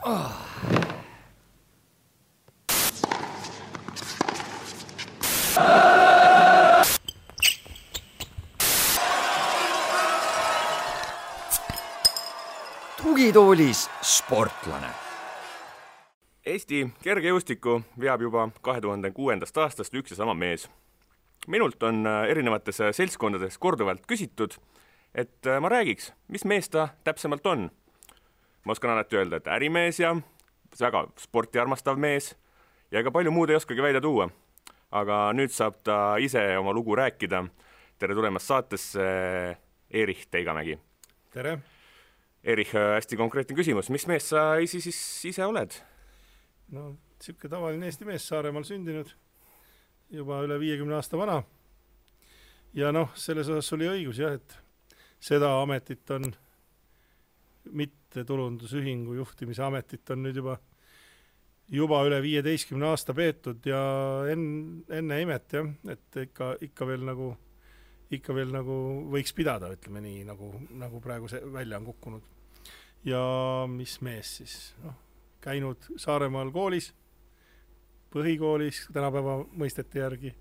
Tugitoolis sportlane. Eesti kergejõustiku veab juba 2006. aastast üks ja sama mees. Minult on erinevates seltskondades korduvalt küsitud, et ma räägiks, mis mees ta täpsemalt on. Ma oskan alati öelda, et ärimees ja väga sporti armastav mees ja ega palju muud ei oskagi välja tuua. Aga nüüd saab ta ise oma lugu rääkida. Tere tulemast saatesse, Erich Teigamägi. Tere! Erich, hästi konkreetne küsimus. Mis mees sa ise oled? No, siuke tavaline Eesti mees, Saaremaal sündinud, juba üle 50 aasta vana. Ja selles osas oli õigus, jah, et seda ametit on, mitte tulundusühingu juhtimise ametit on nüüd juba üle 15 aasta peetud ja enne imet, jah, et ikka veel nagu võiks pidada, ütleme nii, nagu praegu see välja on kukkunud. Ja mis mees siis? Käinud Saaremaal koolis, põhikoolis, tänapäeva mõistete järgi,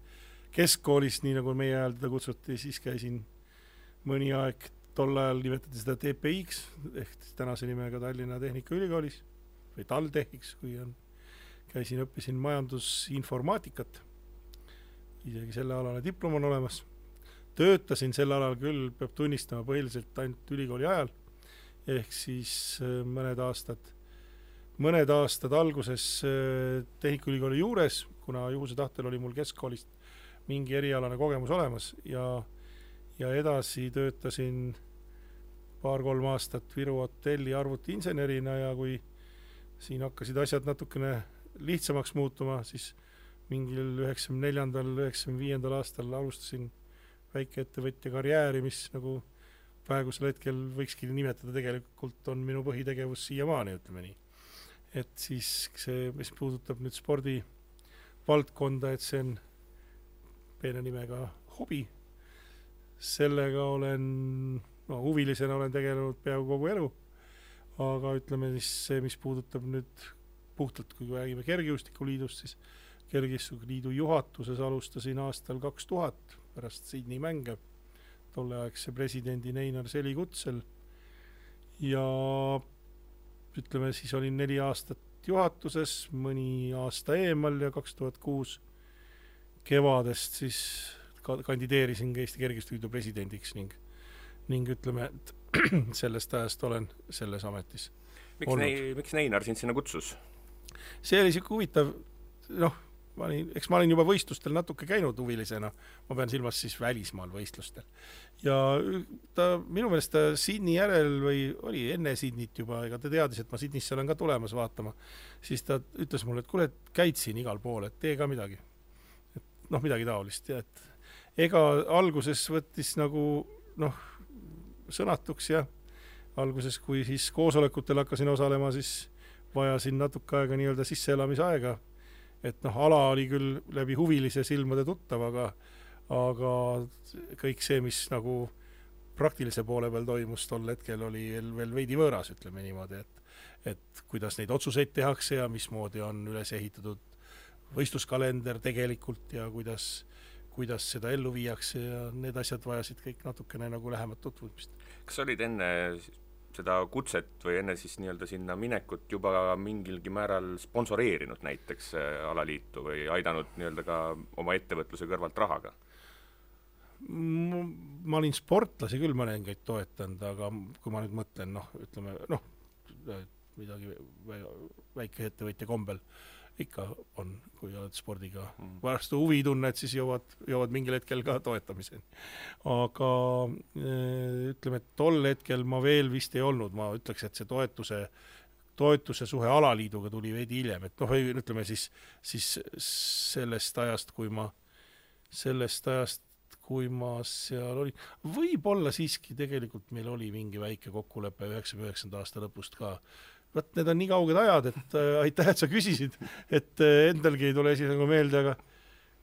keskkoolis, nii nagu meie ajal teda kutsuti, siis käisin mõni aeg, tol ajal nimetati seda TPX, ehk tänase nimega Tallinna Tehnikaülikoolis, või TalTechiks, õppisin majandusinformaatikat, isegi selle alale diplom on olemas. Töötasin sel alal küll, peab tunnistama põhiliselt ainult ülikooli ajal, ehk siis mõned aastad alguses Tehnikaülikooli juures, kuna juhuse tahtel oli mul keskkoolist mingi erialane kogemus olemas ja edasi töötasin 2-3 aastat Viru hotelli arvutiinsenerina ja kui siin hakkasid asjad natukene lihtsamaks muutuma, siis mingil 94-95 aastal alustasin väikeettevõtja karjääri, mis nagu praegusel hetkel võikski nimetada tegelikult on minu põhitegevus siiamaani, ütleme nii. Et siis see, mis puudutab nüüd spordi valdkonda, et see on peene nimega hobi. Sellega huvilisena olen tegelenud peaaegu kogu elu, aga ütleme siis see, mis puudutab nüüd puhtalt, kui räägime Kergejõustikuliidust, siis Kergejõustikuliidu juhatuses alustasin aastal 2000 pärast Sydney mänge, tolleaegse presidendi Einar Seli kutsel ja ütleme, siis olin 4 aastat juhatuses, mõni aasta eemal ja 2006 kevadest siis kandideerisin Eesti Kergejõustikuliidu presidendiks ning ütleme, et sellest ajast olen selles ametis olnud. Miks Einar sind sinna kutsus? See oli siuke huvitav, ma olin juba võistlustel natuke käinud huvilisena, ma pean silmas siis välismaal võistlustel. Ja minu meelest ta Sydney järel või oli enne Sydneyt juba, ega ta teadis, et ma Sydneysse olen ka tulemas vaatama, siis ta ütles mulle, et kuule, et käid siin igal pool, et tee ka midagi. Midagi taolist. Ja et ega alguses võttis nagu sõnatuks ja alguses, kui siis koosolekutel hakkasin osalema, siis vajasin natuke aega nii-öelda sisseelamisaega. Et ala oli küll läbi huvilise silmade tuttav, aga kõik see, mis nagu praktilise poole peal toimus tol hetkel, oli veel veidi võõras, ütleme niimoodi, et kuidas neid otsuseid tehakse ja mismoodi on üles ehitatud võistluskalender tegelikult ja kuidas seda ellu viiakse ja need asjad vajasid kõik natukene nagu lähemat tutvumist. Kas olid enne seda kutset või enne siis nii-öelda sinna minekut juba mingilgi määral sponsoreerinud näiteks alaliitu või aidanud nii-öelda ka oma ettevõtluse kõrvalt rahaga? Ma olin sportlasi küll mõningaid toetanud, aga kui ma nüüd mõtlen, midagi väike ettevõtja kombel ikka on, kui oled spordiga vastu huvi tunned, siis jõuad mingil hetkel ka toetamiseni. Aga ütleme, et tol hetkel ma veel vist ei olnud, ma ütleks, et see toetuse suhe alaliiduga tuli veidi hiljem, et ütleme siis sellest ajast, kui ma seal olin. Võib-olla siiski tegelikult meil oli mingi väike kokkulepe 99. aasta lõpust ka. Need on nii kauged ajad, et aitäh, et sa küsisid, et endalgi ei tule esi nagu meelde,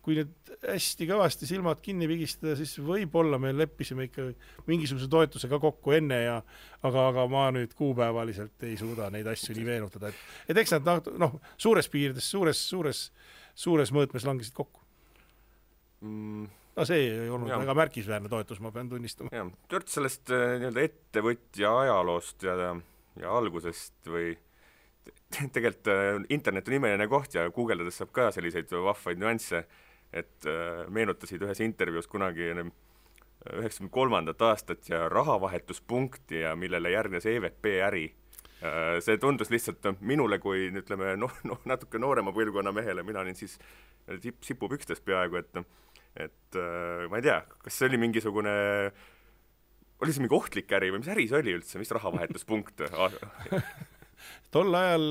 kui nüüd hästi kõvasti silmad kinni pigistada, siis võib-olla me leppisime ikka mingisuguse toetuse ka kokku enne aga ma nüüd kuupäevaliselt ei suuda neid asju nii meenutada, et eks nad suures piirides, suures mõõtmes langesid kokku. See ei olnud väga märkisväärne toetus, ma pean tunnistama. Jah, Tört sellest nii-öelda ettevõtja ajaloost ja algusest või tegelikult internet on imeline koht ja guugeldades saab ka selliseid vahvaid nüansse, et meenutasid ühes intervjuus kunagi 93. aastat ja rahavahetuspunkti ja millele järgnes EVP äri. See tundus lihtsalt minule kui ütleme, natuke noorema põlvkonna mehele, mina olin siis sipupükstes peaaegu, et ma ei tea, kas see oli mingisugune, oli see mingi ohtlik äri või mis äri see oli üldse, mis rahavahetuspunkt? Tol ajal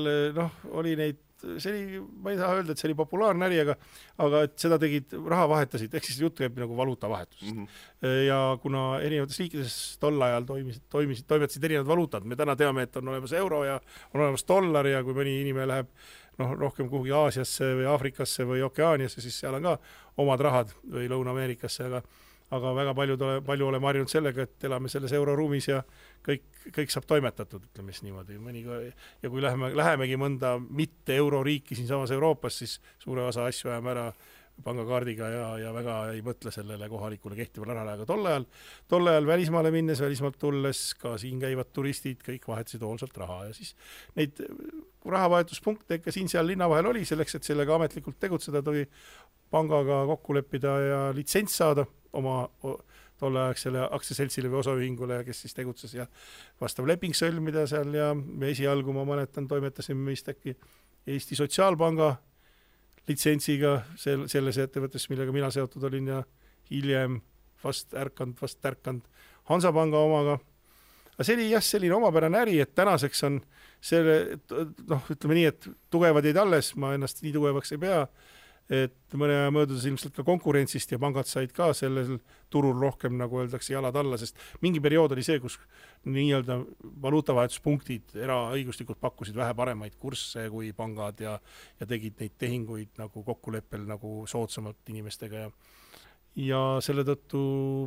oli neid, ma ei taha öelda, et see oli populaarne äri, aga et seda tegid, raha vahetasid, ehk siis jutt käib nagu valuutavahetusest. Ja kuna erinevates riikides tol ajal toimetasid erinevad valuutad, me täna teame, et on olemas euro ja on olemas dollar ja kui mõni inimene läheb rohkem kuhugi Aasiasse või Aafrikasse või Okeaaniasse, siis seal on ka omad rahad või Lõuna-Ameerikasse, aga väga palju oleme harjunud sellega, et elame selles euroruumis ja kõik saab toimetatud, ütleme siis niimoodi. Ja kui lähemegi mõnda mitte euroriiki siin samas Euroopas, siis suure osa asju ajame ära pangakaardiga ja väga ei mõtle sellele kohalikule kehtivale rahale, aga tol ajal välismaale minnes, välismaalt tulles ka siin käivad turistid, kõik vahetasid hoolsalt raha ja siis neid rahavahetuspunkte ikka siin-seal linna vahel oli selleks, et sellega ametlikult tegutseda, tuli pangaga kokku leppida ja litsents saada oma tolleaegsele aktsiaseltsile või osaühingule, kes siis tegutses ja vastav leping sõlmida seal ja me esialgu, ma mäletan, toimetasime vist äkki Eesti Sotsiaalpanga litsentsiga selles ettevõttes, millega mina seotud olin ja hiljem vast ärkand Hansapanga omaga. Aga see oli selline omapärane äri, et tänaseks on selle, ütleme nii, et tugevad jäid alles, ma ennast nii tugevaks ei pea, et mõne aja möödudes ilmselt ka konkurentsist ja pangad said ka sellel turul rohkem, nagu öeldakse, jalad alla, sest mingi periood oli see, kus nii-öelda valuutavahetuspunktid eraõiguslikult pakkusid vähe paremaid kursse kui pangad ja tegid neid tehinguid nagu kokkuleppel nagu soodsamalt inimestega ja selle tõttu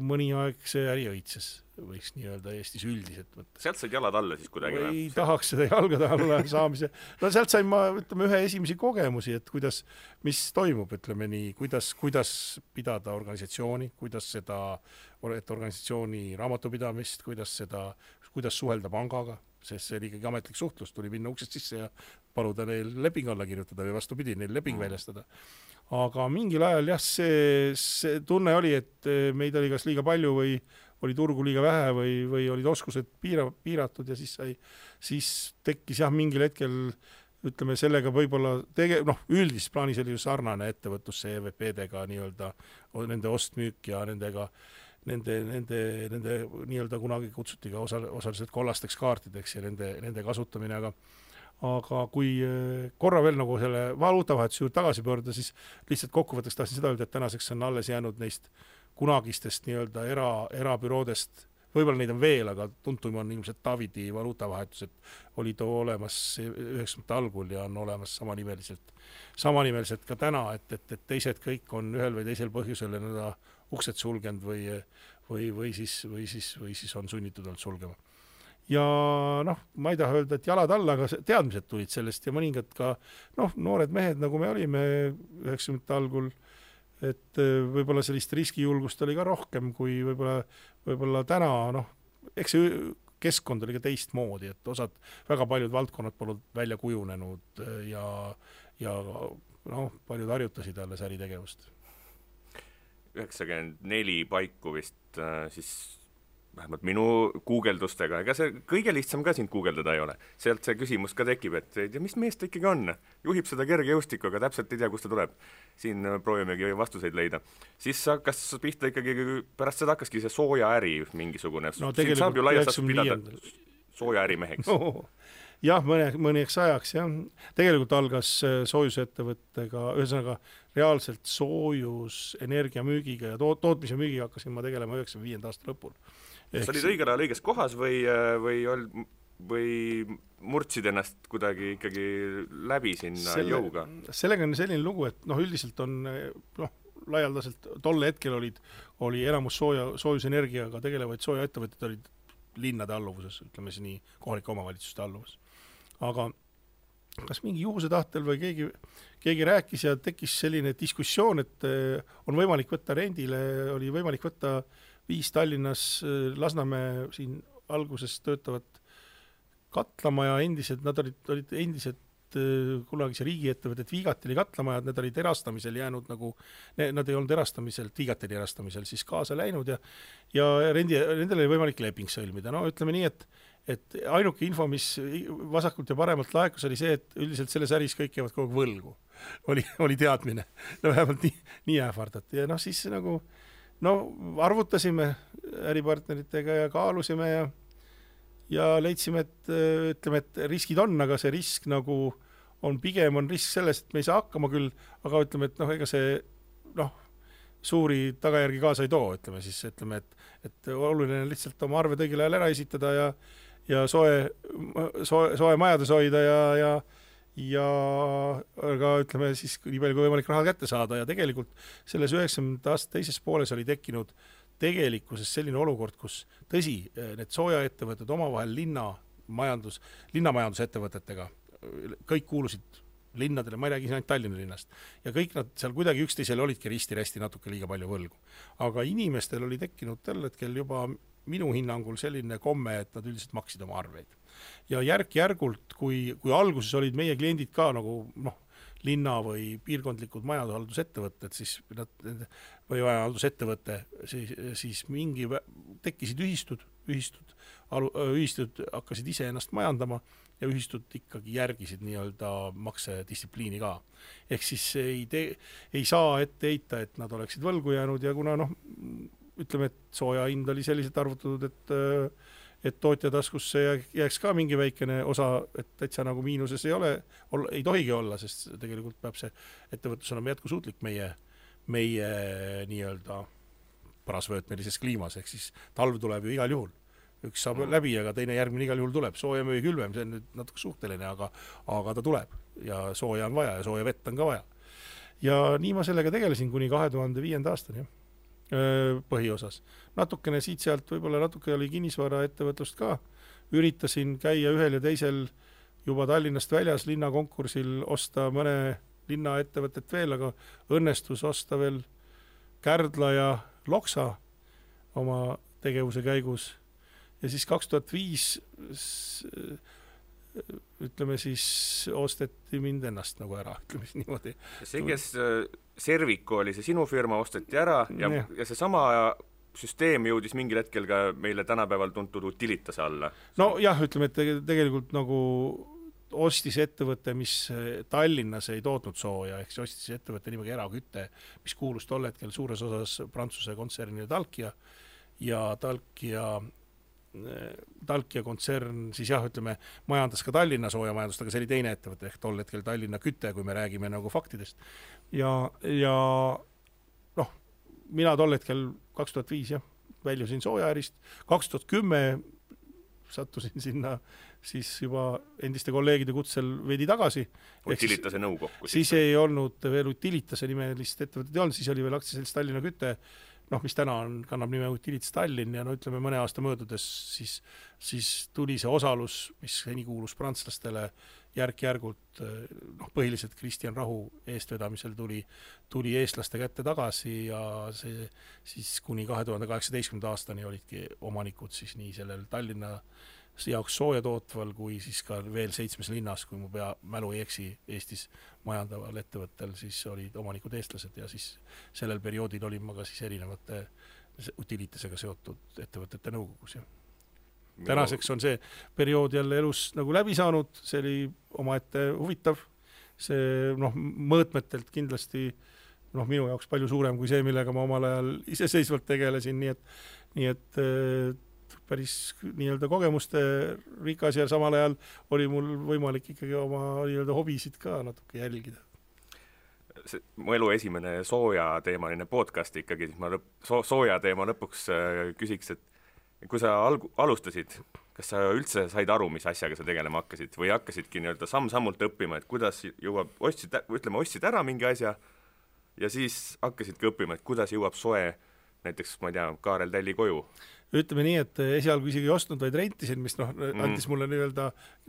mõni aeg see äri õitses, võiks nii öelda Eestis üldiselt võtta. Sealt said jalad alla siis kuidagi? Ei tahaks seda jalgade alla saamise. Sealt sain ma, ütleme, ühe esimesi kogemusi, et mis toimub, ütleme nii, kuidas pidada organisatsiooni, kuidas organisatsiooni raamatupidamist, kuidas suhelda pangaga, sest see oli ikkagi ametlik suhtlus, tuli minna uksest sisse ja paluda neil leping alla kirjutada või vastupidi, neil leping väljastada. Aga mingil ajal see tunne oli, et meid oli kas liiga palju või oli turgu liiga vähe või olid oskused piiratud ja siis tekkis mingil hetkel, ütleme sellega võib-olla üldis plaanis oli ju sarnane ettevõtlusse EVP-dega nii-öelda nende ostmüük ja nende nii-öelda kunagi kutsuti ka osaliselt kollasteks kaartideks ja nende kasutamine, aga kui korra veel nagu selle valuutavahetuse juurde tagasi pöörda, siis lihtsalt kokkuvõtteks tahtsin seda öelda, et tänaseks on alles jäänud neist kunagistest nii-öelda erabüroodest, võib-olla neid on veel, aga tuntum on ilmselt Davidi valuutavahetus, et oli too olemas 90. algul ja on olemas samanimeliselt ka täna, et teised kõik on ühel või teisel põhjusel uksed sulgenud või siis on sunnitud olnud sulgema. Ja ma ei taha öelda, et jalad alla, aga teadmised tulid sellest ja mõningad ka noored mehed, nagu me olime 90. algul, et võib-olla sellist riskijulgust oli ka rohkem kui võib-olla täna, eks see keskkond oli ka teistmoodi, et väga paljud valdkonnad polnud välja kujunenud ja paljud harjutasid alles äritegevust. 94 paiku vist siis vähemalt minu guugeldustega, ega see kõige lihtsam ka sind guugeldada ei ole. Sealt see küsimus ka tekib, et mis mees ta ikkagi on? Juhib seda kergejõustikku, aga täpselt ei tea, kust ta tuleb. Siin proovimegi vastuseid leida. Siis hakkas pihta ikkagi, pärast seda hakkaski see sooja äri mingisugune. Siin saab ju laias pidada sooja ärimeheks. Jah, mõneks ajaks, jah. Tegelikult algas soojusettevõttega, ühesõnaga reaalselt soojus energiamüügiga ja tootmise müügiga hakkasin ma tegelema 95. aasta lõpul. Sa olid õigel ajal õiges kohas või murtsid ennast kuidagi ikkagi läbi sinna jõuga? Sellega on selline lugu, et üldiselt on laialdaselt tol hetkel oli enamus soojusenergiaga tegelevaid soojaettevõtted olid linnade alluvuses, ütleme siis nii, kohalike omavalitsuste alluvus. Aga kas mingi juhuse tahtel või keegi rääkis ja tekkis selline diskussioon, et on võimalik võtta rendile, oli võimalik võtta 5 Tallinnas Lasnamäe siin alguses töötavat katlamaja endised, nad olid endised kunagise riigiettevõtted Viigatili katlamajad, need olid erastamisel jäänud nagu, nad ei olnud erastamisel, Viigatili erastamisel siis kaasa läinud ja nendel oli võimalik leping sõlmida. No ütleme nii, et ainuke info, mis vasakult ja paremalt laekus, oli see, et üldiselt selles äris kõik jäävad kogu võlgu. Oli teadmine. No vähemalt nii ähvardati. Ja siis nagu, arvutasime äripartneritega ja kaalusime ja leidsime, et riskid on, aga see risk nagu on pigem risk sellest, et me ei saa hakkama küll, aga ütleme, et ega see suuri tagajärgi kaasa ei too, ütleme, et oluline on lihtsalt oma arved õigel ajal ära esitada ja soe majades hoida ja aga ütleme siis nii palju kui võimalik raha kätte saada ja tegelikult selles 90. aasta teises pooles oli tekkinud tegelikkuses selline olukord, kus tõsi, need soojaettevõtted omavahel linnamajandusettevõtetega, kõik kuulusid linnadele, ma ei räägi siin ainult Tallinna linnast, ja kõik nad seal kuidagi üksteisele olidki risti-resti natuke liiga palju võlgu. Aga inimestel oli tekkinud täl hetkel juba minu hinnangul selline komme, et nad üldiselt maksid oma arveid. Ja järk-järgult, kui alguses olid meie kliendid ka nagu linna või piirkondlikud majanduhaldusettevõtted, või majandusettevõte, siis mingi tekkisid ühistud hakkasid ise ennast majandama ja ühistud ikkagi järgisid nii-öelda maksedistsipliini ka. Ehk siis ei saa ette heita, et nad oleksid võlgu jäänud ja kuna ütleme, et sooja hind oli selliselt arvutatud, et tootja taskusse jääks ka mingi väikene osa, et täitsa nagu miinuses ei tohigi olla, sest tegelikult peab see ettevõtlus olema jätkusuutlik meie nii-öelda parasvöötmelises kliimas, ehk siis talv tuleb ju igal juhul. Üks saab läbi, aga teine järgmine igal juhul tuleb. Sooja või külvem, see on nüüd natuke suhteline, aga ta tuleb ja sooja on vaja ja sooja vett on ka vaja. Ja nii ma sellega tegelesin kuni 2005. aastani. Põhiosas. Natukene siit-sealt võib-olla natuke oli kinnisvara ettevõtlust ka. Üritasin käia ühel ja teisel juba Tallinnast väljas linnakonkursil osta mõne linnaettevõtet veel, aga õnnestus osta veel Kärdla ja Loksa oma tegevuse käigus. Ja siis 2005 ütleme siis osteti mind ennast nagu ära, ütleme siis niimoodi. See, kes Servico oli see sinu firma, osteti ära ja see sama süsteem jõudis mingil hetkel ka meile tänapäeval tuntud Utilitase alla. No jah, ütleme, et tegelikult nagu ostis ettevõte, mis Tallinnas ei tootnud sooja, ehk see ostis ettevõte nimega Eraküte, mis kuulus tol hetkel suures osas Prantsuse kontsernile Talkia ja Talkia kontsern siis jah, ütleme, majandas ka Tallinna soojamajandust, aga see oli teine ettevõte, ehk tol hetkel Tallinna Küte, kui me räägime nagu faktidest. Ja mina tol hetkel 2005 väljusin soojaärist, 2010 sattusin sinna siis juba endiste kolleegide kutsel veidi tagasi. Utilitase nõukokku. Siis ei olnud veel Utilitase nimelist ettevõtet ei olnud, siis oli veel aktsiaselts Tallinna Küte, mis täna kannab nime Utilitas Tallinn ja ütleme mõne aasta möödudes siis tuli see osalus, mis seni kuulus prantslastele järk-järgult, põhiliselt Kristjan Rahu eestvedamisel tuli eestlaste kätte tagasi ja see siis kuni 2018. aastani olidki omanikud siis nii sellel Tallinna jaoks sooja tootval kui siis ka veel 7 linnas, kui mu mälu ei eksi Eestis majandaval ettevõttel, siis olid omanikud eestlased ja siis sellel perioodil olin ma ka siis erinevate Utilitasega seotud ettevõtete nõukogus. Tänaseks on see periood jälle elus nagu läbi saanud, see oli omaette huvitav, see mõõtmetelt kindlasti minu jaoks palju suurem kui see, millega ma omal ajal iseseisvalt tegelesin, nii et päris nii-öelda kogemuste rikas ja samal ajal oli mul võimalik ikkagi oma nii-öelda hobisid ka natuke jälgida. Mu elu esimene sooja teemaline podcast ikkagi, siis ma sooja teema lõpuks küsiks, et kui sa alustasid, kas sa üldse said aru, mis asjaga sa tegelema hakkasid või hakkasidki nii-öelda samm-sammult õppima, et kuidas jõuab, ostsid ära mingi asja ja siis hakkasidki õppima, et kuidas jõuab soe näiteks, ma ei tea, Kaarel Tälli koju. Ütleme nii, et esialgu isegi ei ostnud, vaid rentisin, mis andis mulle nii-öelda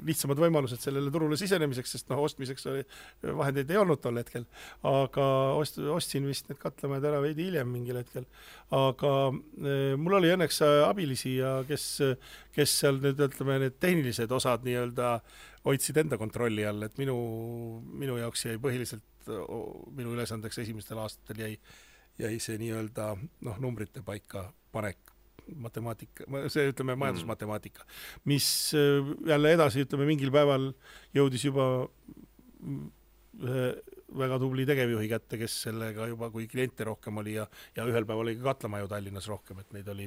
lihtsamad võimalused sellele turule sisenemiseks, sest ostmiseks vahendeid ei olnud tol hetkel. Aga ostsin vist need katlamajad ära veidi hiljem mingil hetkel. Aga mul oli õnneks abilisi ja kes seal nüüd, ütleme, need tehnilised osad nii-öelda hoidsid enda kontrolli all, et minu jaoks jäi põhiliselt, minu ülesandeks esimestel aastatel jäi see nii-öelda numbrite paika panek, matemaatika, see ütleme majandusmatemaatika, mis jälle edasi, ütleme, mingil päeval jõudis juba väga tubli tegevjuhi kätte, kes sellega juba, kui kliente rohkem oli ja ühel päeval oli ka katlamaju Tallinnas rohkem, et neid oli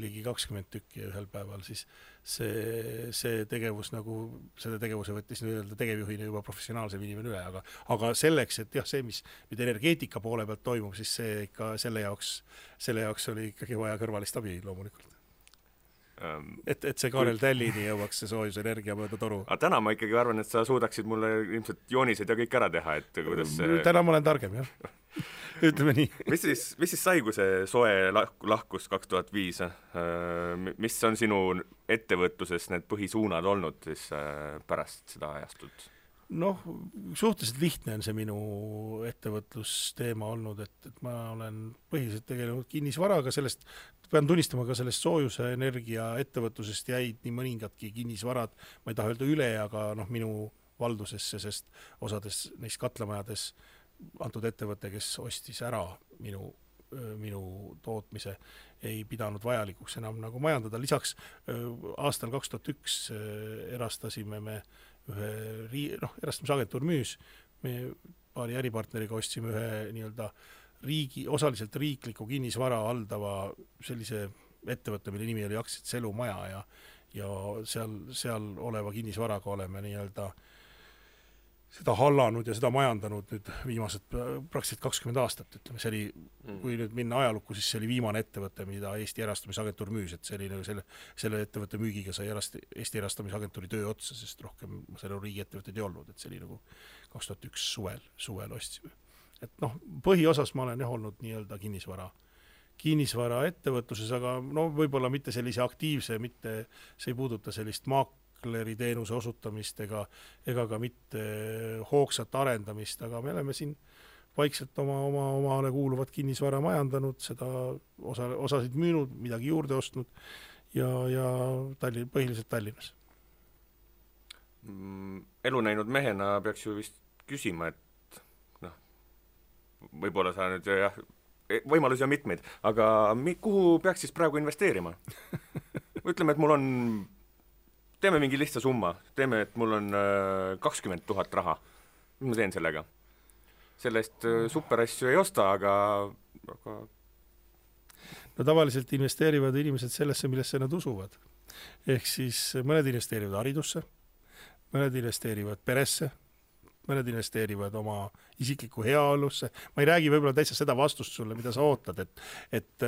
ligi 20 tükki ja ühel päeval, siis see tegevus selle tegevuse võttis nii-öelda tegevjuhina juba professionaalsem inimene üle, aga selleks, et jah, see, mis energeetika poole pealt toimub, siis see ikka selle jaoks oli ikkagi vaja kõrvalist abi loomulikult. Et see Kaarel Tällini jõuaks see soojusenergia mööda toru. Aga täna ma ikkagi arvan, et sa suudaksid mulle ilmselt joonised ja kõik ära teha, et kuidas Täna ma olen targem, jah. Ütleme nii. Mis siis sai, kui see soe lahkus 2005? Mis on sinu ettevõtluses need põhisuunad olnud siis pärast seda ajastut? Suhteliselt lihtne on see minu ettevõtlusteema olnud, et ma olen põhiliselt tegelenud kinnisvaraga, pean tunnistama ka sellest soojuse energia ettevõtlusest jäid nii mõningadki kinnisvarad, ma ei taha öelda üle, aga minu valdusesse, sest osades neist katlamajades antud ettevõte, kes ostis ära minu tootmise, ei pidanud vajalikuks enam majandada. Lisaks aastal 2001 erastasime me erastamisagentuur müüs, me paari äripartneriga ostsime ühe nii-öelda osaliselt riikliku kinnisvara haldava sellise ettevõtte, mille nimi oli Aktsiad Selumaja ja seal oleva kinnisvaraga oleme nii-öelda seda hallanud ja seda majandanud nüüd viimased praktiliselt 20 aastat, ütleme, see oli, kui nüüd minna ajalukku, siis see oli viimane ettevõte, mida Eesti erastamisagentuur müüs, et see oli selle ettevõtte müügiga sai Eesti erastamisagentuuri töö otsa, sest rohkem selle riigi ettevõtted ei olnud, et see oli 2001 suvel ostsime. Et põhiosas ma olen olnud nii-öelda kinnisvara ettevõtluses, aga võib-olla mitte sellise aktiivse, see ei puuduta sellist teenuse osutamist ega ka mitte hoogsat arendamist, aga me oleme siin vaikselt omale kuuluvat kinnisvara majandanud, seda osasid müünud, midagi juurde ostnud ja põhiliselt Tallinnas. Elu näinud mehena peaks ju vist küsima, et võib-olla sa nüüd võimalusi on mitmeid, aga kuhu peaks siis praegu investeerima? Ütleme, et teeme mingi lihtsa summa, et mul on 20 000 raha. Mis ma teen sellega? Sellest superasju ei osta, aga tavaliselt investeerivad inimesed sellesse, millesse nad usuvad. Ehk siis mõned investeerivad haridusse, mõned investeerivad peresse, mõned investeerivad oma isikliku heaolusse. Ma ei räägi võib-olla täitsa seda vastust sulle, mida sa ootad, et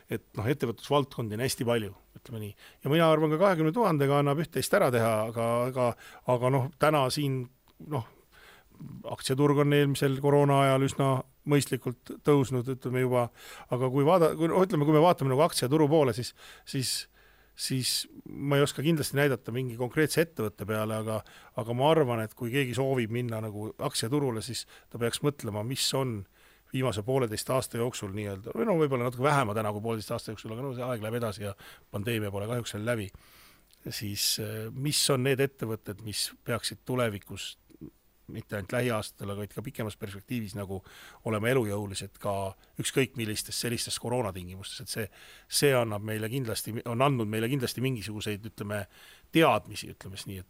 ettevõtlusvaldkondi on hästi palju, ütleme nii. Ja mina arvan ka 20 000 annab üht-teist ära teha, aga täna siin, aktsiaturg on eelmisel koroona ajal üsna mõistlikult tõusnud, ütleme juba, aga kui me vaatame aktsiaturu poole, siis ma ei oska kindlasti näidata mingi konkreetse ettevõtte peale, aga ma arvan, et kui keegi soovib minna aktsiaturule, siis ta peaks mõtlema, mis on viimase 1,5 aasta jooksul nii-öelda, või võib-olla natuke vähema täna kui 1,5 aasta jooksul, aga see aeg läheb edasi ja pandeemia pole kahjuks veel läbi, siis mis on need ettevõtted, mis peaksid tulevikus mitte ainult lähiaastatel, aga ka pikemas perspektiivis olema elujõulised ka ükskõik millistes sellistes koroonatingimustes, et see on andnud meile kindlasti mingisuguseid, ütleme, teadmisi, ütlemes nii,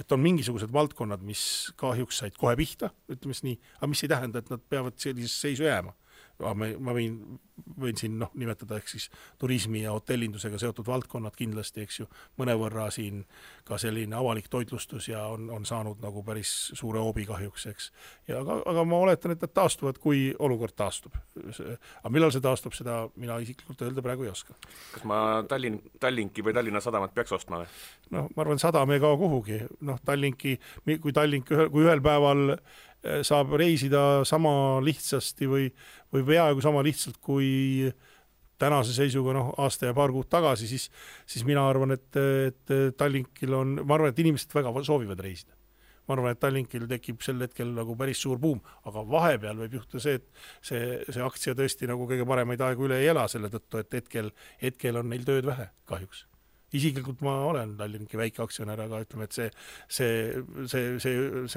et on mingisugused valdkonnad, mis kahjuks said kohe pihta, ütlemes nii, aga mis ei tähenda, et nad peavad sellises seisu jääma. Ma võin siin nimetada ehk siis turismi ja hotellindusega seotud valdkonnad kindlasti, eks ju, mõnevõrra siin ka selline avalik toitlustus ja on saanud päris suure hoobi kahjuks, eks. Aga ma oletan, et nad taastuvad, kui olukord taastub. Aga millal see taastub, seda mina isiklikult öelda praegu ei oska. Kas ma Tallinki või Tallinna Sadamat peaks ostma või? Ma arvan, Sadam ei kao kuhugi. Tallinki, kui ühel päeval saab reisida sama lihtsasti või peaaegu sama lihtsalt kui tänase seisuga aasta ja paar kuud tagasi, siis mina arvan, et Tallinkil ma arvan, et inimesed väga soovivad reisida. Ma arvan, et Tallinkil tekib sel hetkel nagu päris suur buum, aga vahepeal võib juhtuda see, et see aktsia tõesti nagu kõige paremaid aegu üle ei ela selle tõttu, et hetkel on neil tööd vähe kahjuks. Isiklikult ma olen Tallinki väike aktsionär, aga ütleme, et see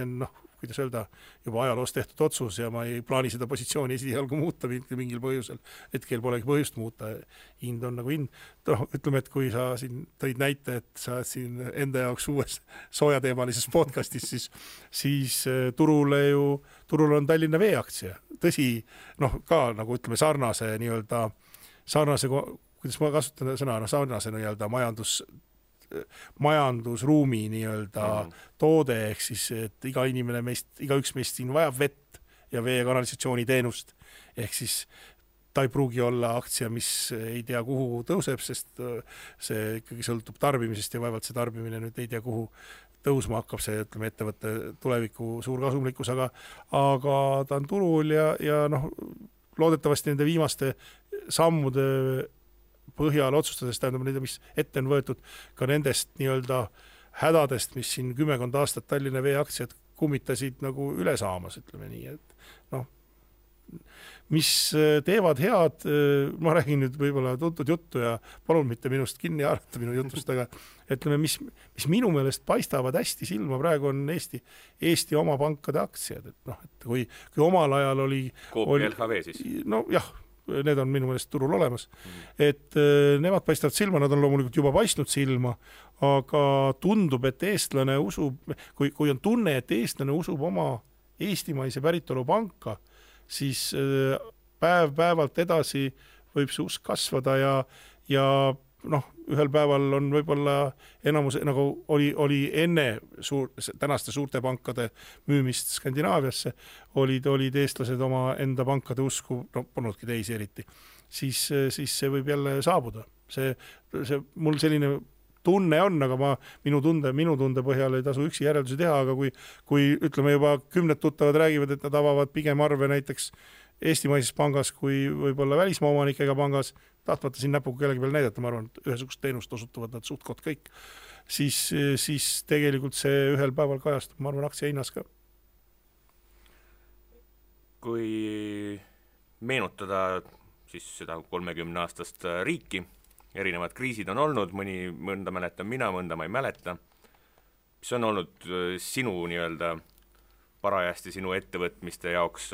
on kuidas öelda, juba ajaloos tehtud otsus ja ma ei plaani seda positsiooni esialgu muuta mingil põhjusel. Hetkel polegi põhjust muuta, hind on nagu hind. Ütleme, et kui sa siin tõid näite, et sa siin enda jaoks uues soojateemalises podcastis, siis turul on Tallinna Vee aktsia. Tõsi, ka nagu ütleme sarnase, kuidas ma kasutan sõna, sarnase nii-öelda majandusruumi nii-öelda toode, ehk siis, et igaüks meist siin vajab vett ja vee- ja kanalisatsiooni teenust, ehk siis ta ei pruugi olla aktsia, mis ei tea kuhu tõuseb, sest see ikkagi sõltub tarbimisest ja vaevalt see tarbimine nüüd ei tea kuhu tõusma hakkab, see ütleme ettevõtte tuleviku suur kasumlikkus, aga ta on turul ja loodetavasti nende viimaste sammude põhjal otsustades, tähendab neid, mis ette on võetud ka nendest nii-öelda hädadest, mis siin 10 aastat Tallinna Vee aktsiad kummitasid nagu üle saamas, ütleme nii, et mis teevad head, ma räägin nüüd võib-olla tuntud juttu ja palun mitte minust kinni haarata minu jutust, aga ütleme, mis minu meelest paistavad hästi silma praegu on Eesti oma pankade aktsiad, et kui omal ajal oli LHV siis? Jah, need on minu meelest turul olemas, et nemad paistavad silma, nad on loomulikult juba paistnud silma, aga tundub, et eestlane usub, kui on tunne, et eestlane usub oma eestimaise päritolu panka, siis päevalt edasi võib see usk kasvada ja ühel päeval on võib-olla enamus, nagu oli enne tänaste suurte pankade müümist Skandinaaviasse, olid eestlased oma enda pankade usku, polnudki teisi eriti, siis see võib jälle saabuda. See mul selline tunne on, aga minu tunde põhjal ei tasu üksi järeldusi teha, aga kui ütleme juba 10 tuttavad räägivad, et nad avavad pigem arve näiteks eestimaises pangas kui võib-olla välismaa omanikega pangas, tahtmata siin näpuga kellegi peal näidata, ma arvan, et ühesugust teenust osutuvad nad suhtkond kõik, siis tegelikult see ühel päeval kajastub, ma arvan, aktsia hinnas ka. Kui meenutada siis seda 30-aastast riiki, erinevad kriisid on olnud, mõnda mäletan mina, mõnda ma ei mäleta, mis on olnud sinu nii-öelda parajasti sinu ettevõtmiste jaoks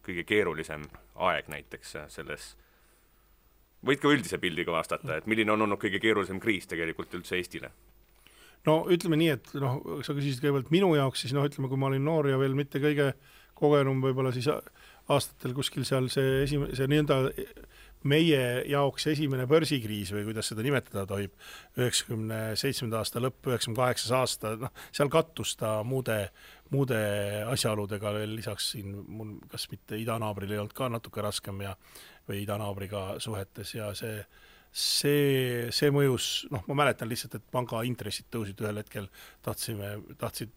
kõige keerulisem aeg näiteks selles. Võid ka üldise pildiga vastata, et milline on olnud kõige keerulisem kriis tegelikult üldse Eestile? Ütleme nii, et sa küsisid kõigepealt minu jaoks, siis ütleme, kui ma olin noor ja veel mitte kõige kogenum võib-olla siis aastatel kuskil seal see nii-öelda meie jaoks esimene börsikriis või kuidas seda nimetada tohib, 97. aasta lõpp, 98. aasta, seal kattus ta muude asjaoludega veel lisaks siin, mul kas mitte idanaabril ei olnud ka natuke raskem või idanaabriga suhetes ja see mõjus, ma mäletan lihtsalt, et panga intressid tõusid ühel hetkel, tahtsid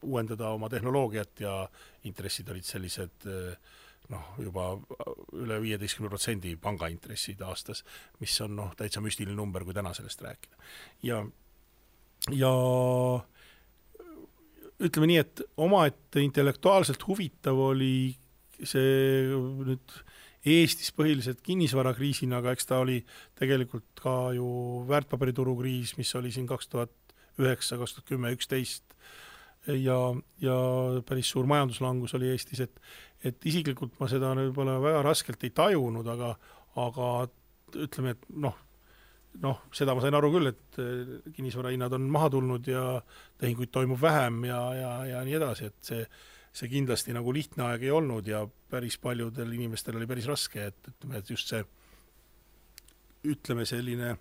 uuendada oma tehnoloogiat ja intressid olid sellised juba üle 15% pangaintressid aastas, mis on täitsa müstiline number, kui täna sellest rääkida. Ja ütleme nii, et omaette intellektuaalselt huvitav oli see nüüd Eestis põhiliselt kinnisvarakriisina, aga eks ta oli tegelikult ka ju väärtpaberituru kriis, mis oli siin 2009, 2010, 2011 ja päris suur majanduslangus oli Eestis, et isiklikult ma seda võib-olla väga raskelt ei tajunud, aga ütleme, et seda ma sain aru küll, et kinnisvarahinnad on maha tulnud ja tehinguid toimub vähem ja nii edasi, et see kindlasti nagu lihtne aeg ei olnud ja päris paljudel inimestel oli päris raske, et just see ütleme selline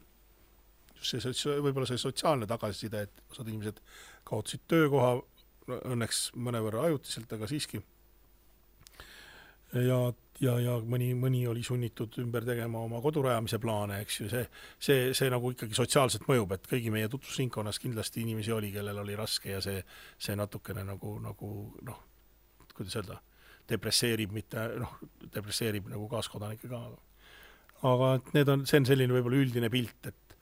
võib-olla see sotsiaalne tagasiside, et osad inimesed kaotasid töökoha, õnneks mõnevõrra ajutiselt, aga siiski. Ja mõni oli sunnitud ümber tegema oma kodurajamise plaane, eks ju, see nagu ikkagi sotsiaalselt mõjub, et kõigi meie tutvusringkonnas kindlasti inimesi oli, kellel oli raske ja see natukene nagu kuidas öelda, depresseerib, mitte depresseerib nagu kaaskodanike ka. Aga see on selline võib-olla üldine pilt, et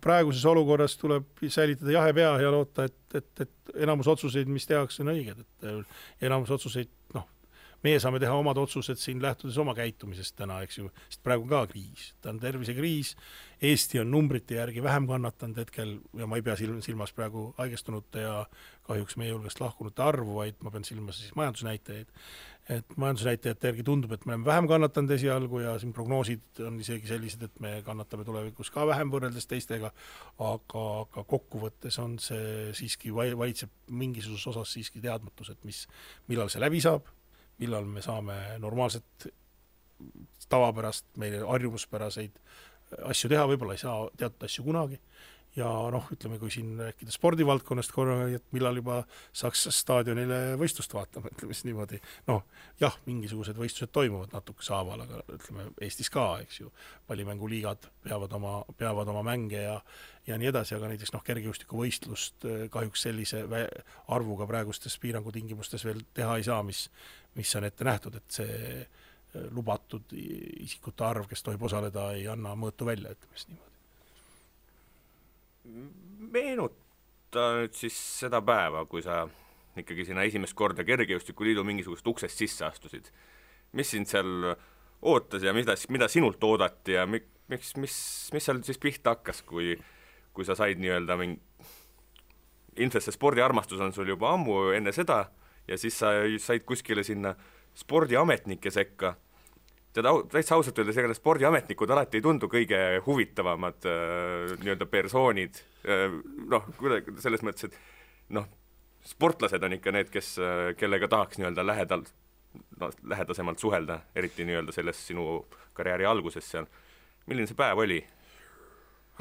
praeguses olukorras tuleb säilitada jahe pea ja loota, et enamus otsuseid, mis tehakse, on õiged, et enamus otsuseid, meie saame teha omad otsused siin lähtudes oma käitumisest täna, eks ju, sest praegu on ka kriis, ta on tervisekriis, Eesti on numbrite järgi vähem kannatanud hetkel ja ma ei pea silmas praegu haigestunute ja kahjuks meie hulgast lahkunute arvu, vaid ma pean silmas siis majandusnäitajaid. Et majandusnäitajate järgi tundub, et me oleme vähem kannatanud esialgu ja siin prognoosid on isegi sellised, et me kannatame tulevikus ka vähem võrreldes teistega, aga kokkuvõttes on see siiski valitseb mingisuguses osas siiski teadmatus, et millal see läbi saab, millal me saame normaalset tavapärast, meile harjumuspäraseid asju teha, võib-olla ei saa teatud asju kunagi. Ja ütleme, kui siin rääkida spordivaldkonnast korra, et millal juba saaks staadionile võistlust vaatama, ütleme siis niimoodi. Jah, mingisugused võistlused toimuvad natuke saaval, aga ütleme Eestis ka, eks ju, pallimänguliigad peavad oma mänge ja nii edasi, aga näiteks kergejõustiku võistlust kahjuks sellise arvuga praegustes piirangutingimustes veel teha ei saa, mis on ette nähtud, et see lubatud isikute arv, kes tohib osaleda, ei anna mõõtu välja, ütleme siis niimoodi. Meenuta nüüd siis seda päeva, kui sa ikkagi sinna esimest korda Kergejõustikuliidu mingisugust uksest sisse astusid. Mis sind seal ootas ja mida sinult oodati ja mis seal siis pihta hakkas, kui sa said nii-öelda ilmselt see spordiarmastus on sul juba ammu enne seda ja siis sa said kuskile sinna spordiametnike sekka. Täitsa ausalt öeldes, ega spordiametnikud alati ei tundu kõige huvitavamad nii-öelda persoonid. Selles mõttes, et sportlased on ikka need, kellega tahaks nii-öelda lähedasemalt suhelda, eriti nii-öelda selles sinu karjääri alguses seal. Milline see päev oli?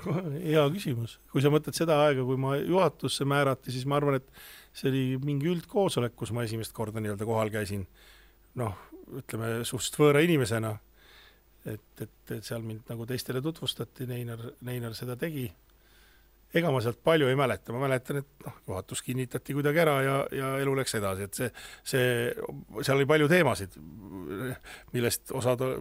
Hea küsimus. Kui sa mõtled seda aega, kui ma juhatusse määrati, siis ma arvan, et see oli mingi üldkoosolek, kus ma esimest korda nii-öelda kohal käisin. Ütleme, suhteliselt võõra inimesena, et seal mind nagu teistele tutvustati, Neinar seda tegi. Ega ma sealt palju ei mäleta, ma mäletan, et juhatus kinnitati kuidagi ära ja elu läks edasi, et seal oli palju teemasid, millest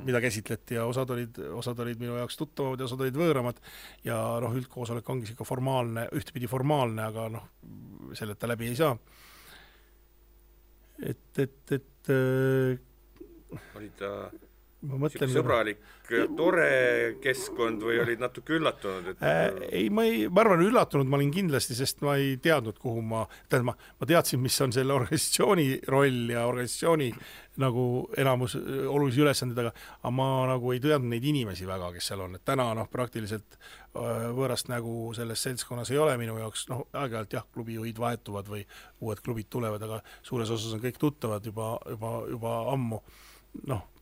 mida käsitleti ja osad olid minu jaoks tuttavad ja osad olid võõramad ja üldkoosolek ongi siuke formaalne, ühtepidi formaalne, aga selleta läbi ei saa. Oli ta sõbralik, tore keskkond või olid natuke üllatunud? Ei, ma arvan üllatunud ma olin kindlasti, sest ma ei teadnud, kuhu ma teadsin, mis on selle organisatsiooni roll ja organisatsiooni nagu enamus olulisi ülesandid, aga ma nagu ei teadnud neid inimesi väga, kes seal on. Et täna praktiliselt võõrast nägu selles seltskonnas ei ole minu jaoks, aeg-ajalt jah, klubijuhid vahetuvad või uued klubid tulevad, aga suures osas on kõik tuttavad juba ammu.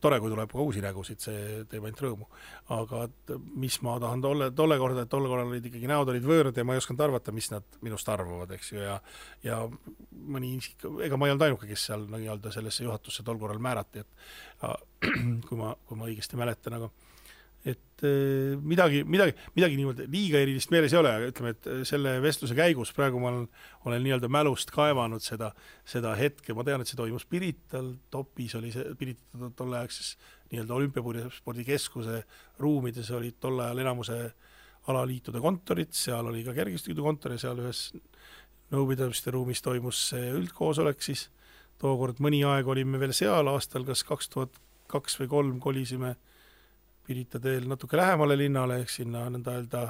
Tore, kui tuleb ka uusi nägusid, see teeb ainult rõõmu. Aga mis ma tahan tolle korda, et tolle korral olid ikkagi näod olid võõrad ja ma ei osanud arvata, mis nad minust arvavad, eks ju, ja mõni isik, ega ma ei olnud ainuke, kes seal sellesse juhatusse tol korral määrati, et kui ma õigesti mäletan, aga et midagi niimoodi liiga erilist meeles ei ole, aga ütleme, et selle vestluse käigus praegu ma olen nii-öelda mälust kaevanud seda hetke, ma tean, et see toimus Pirital, Topis oli see Pirital tolleaegses nii-öelda olümpiaspordikeskuse ruumides olid tol ajal enamuse alaliitude kontorid, seal oli ka kergejõustikuliidu kontor ja seal ühes nõupidamiste ruumis toimus see üldkoosolek, siis tookord mõni aeg olime veel seal aastal, kas 2002 või 2003 kolisime Pirita teel natuke lähemale linnale, ehk sinna nõnda öelda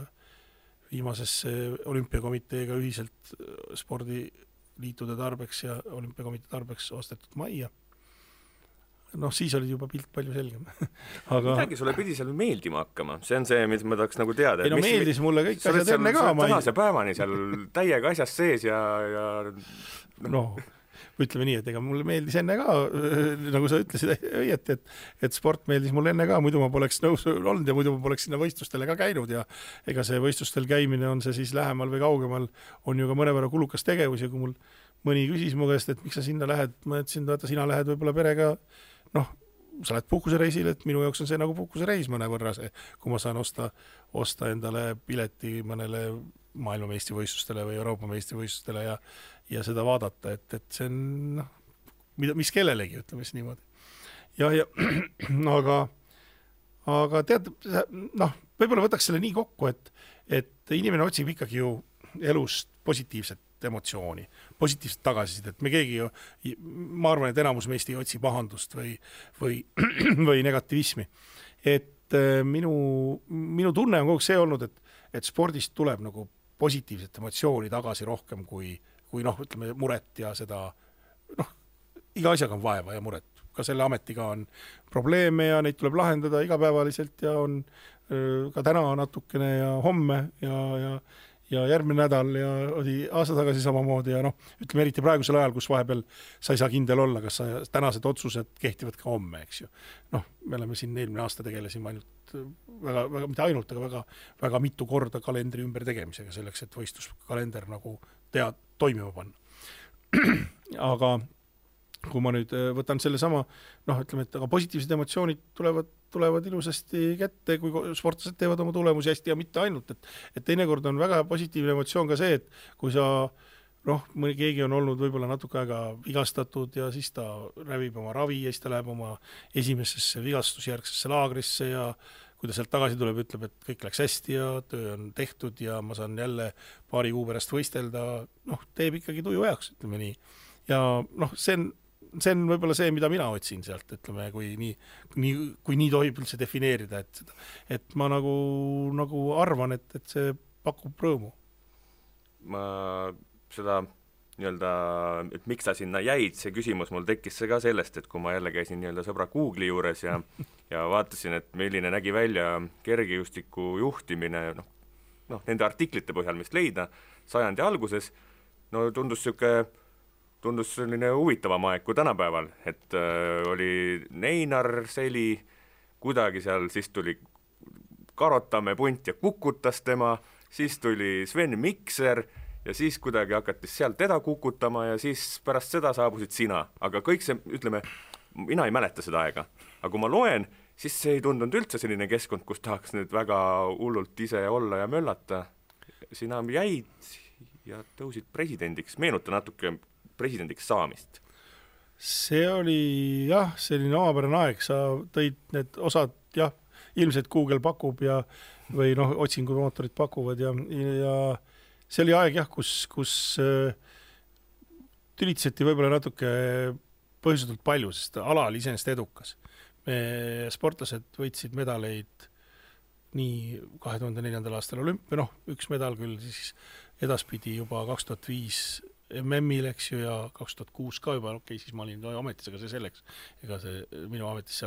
viimasesse olümpiakomiteega ühiselt spordiliitude tarbeks ja olümpiakomitee tarbeks ostetud majja. Siis oli juba pilt palju selgem. Aga midagi sulle pidi seal meeldima hakkama, see on see, mis ma tahaks nagu teada. Ei meeldis mulle kõik asjad enne ka. Tänase päevani seal täiega asjast sees ja ütleme nii, et ega mulle meeldis enne ka, nagu sa ütlesid õieti, et sport meeldis mulle enne ka, muidu ma poleks nõus olnud ja muidu ma poleks sinna võistlustele ka käinud ja ega see võistlustel käimine on see siis lähemal või kaugemal, on ju ka mõnevõrra kulukas tegevus ja kui mul mõni küsis mu käest, et miks sa sinna lähed, ma ütlesin, vaata sina lähed võib-olla perega, sa lähed puhkusereisil, et minu jaoks on see nagu puhkusereis mõnevõrra see, kui ma saan osta endale pileti mõnele maailmameistrivõistlustele või Euroopa meistrivõistlustele ja seda vaadata, et see on mis kellelegi, ütleme siis niimoodi. Ja aga tead, noh, võib-olla võtaks selle nii kokku, et inimene otsib ikkagi ju elust positiivset emotsiooni, positiivset tagasisidet, me keegi ju, ma arvan, et enamus meist ei otsi pahandust või negativismi. Et minu tunne on kogu see olnud, et spordist tuleb nagu positiivset emotsiooni tagasi rohkem kui noh, ütleme muret ja seda, noh, iga asjaga on vaeva ja muret. Ka selle ametiga on probleeme ja neid tuleb lahendada igapäevaliselt ja on ka täna natukene ja homme ja järgmine nädal ja oli aasta tagasi samamoodi ja noh, ütleme eriti praegusel ajal, kus vahepeal sa ei saa kindel olla, kas tänased otsused kehtivad ka homme, eks ju. Noh, me oleme siin eelmine aasta tegelesime ainult väga, mitte ainult, aga väga mitu korda kalendri ümber tegemisega selleks, et võistluskalender nagu toimima panna. Aga kui ma nüüd võtan selle sama, noh, ütleme, et aga positiivsed emotsioonid tulevad ilusasti kätte, kui sportlased teevad oma tulemusi hästi ja mitte ainult, et teinekord on väga positiivne emotsioon ka see, et kui sa, noh, keegi on olnud võib-olla natuke aega vigastatud ja siis ta rävib oma ravi ja siis ta läheb oma esimesesse vigastusjärgsesse laagrisse ja kui ta sealt tagasi tuleb, ütleb, et kõik läks hästi ja töö on tehtud ja ma saan jälle paari kuu pärast võistelda, noh, teeb ikkagi tuju heaks, ütleme nii. Ja noh, see on võib-olla see, mida mina otsin sealt, ütleme, kui nii tohib üldse defineerida, et ma nagu arvan, et see pakub rõõmu. Ma seda nii-öelda, et miks sa sinna jäid, see küsimus mul tekkis see ka sellest, et kui ma jälle käisin nii-öelda sõbra Google'i juures ja vaatasin, et milline nägi välja kergejõustiku juhtimine, noh, nende artiklite põhjal, mis leida sajandi alguses, no tundus selline huvitavam aeg kui tänapäeval, et oli Neinar Seli, kuidagi seal, siis tuli Karotamäe punt ja kukutas tema, siis tuli Sven Mikser ja siis kuidagi hakati sealt teda kukutama ja siis pärast seda saabusid sina. Aga kõik see, ütleme, mina ei mäleta seda aega, aga kui ma loen, siis see ei tundunud üldse selline keskkond, kus tahaks nüüd väga hullult ise olla ja möllata. Sina jäid ja tõusid presidendiks, meenuta natuke presidendiks saamist. See oli jah, selline omapärane aeg, sa tõid need osad, jah, ilmselt Google pakub või noh, otsingumootorid pakuvad ja see oli aeg jah, kus tülitseti võib-olla natuke põhjustatult palju, sest ala oli iseenesest edukas. Me sportlased võitsid medaleid nii 2004. aastal olümpia, noh, üks medal küll siis edaspidi juba 2005 MM-il, eks ju, ja 2006 ka juba, okei, siis ma olin ametis, aga see selleks. Ega see minu ametisse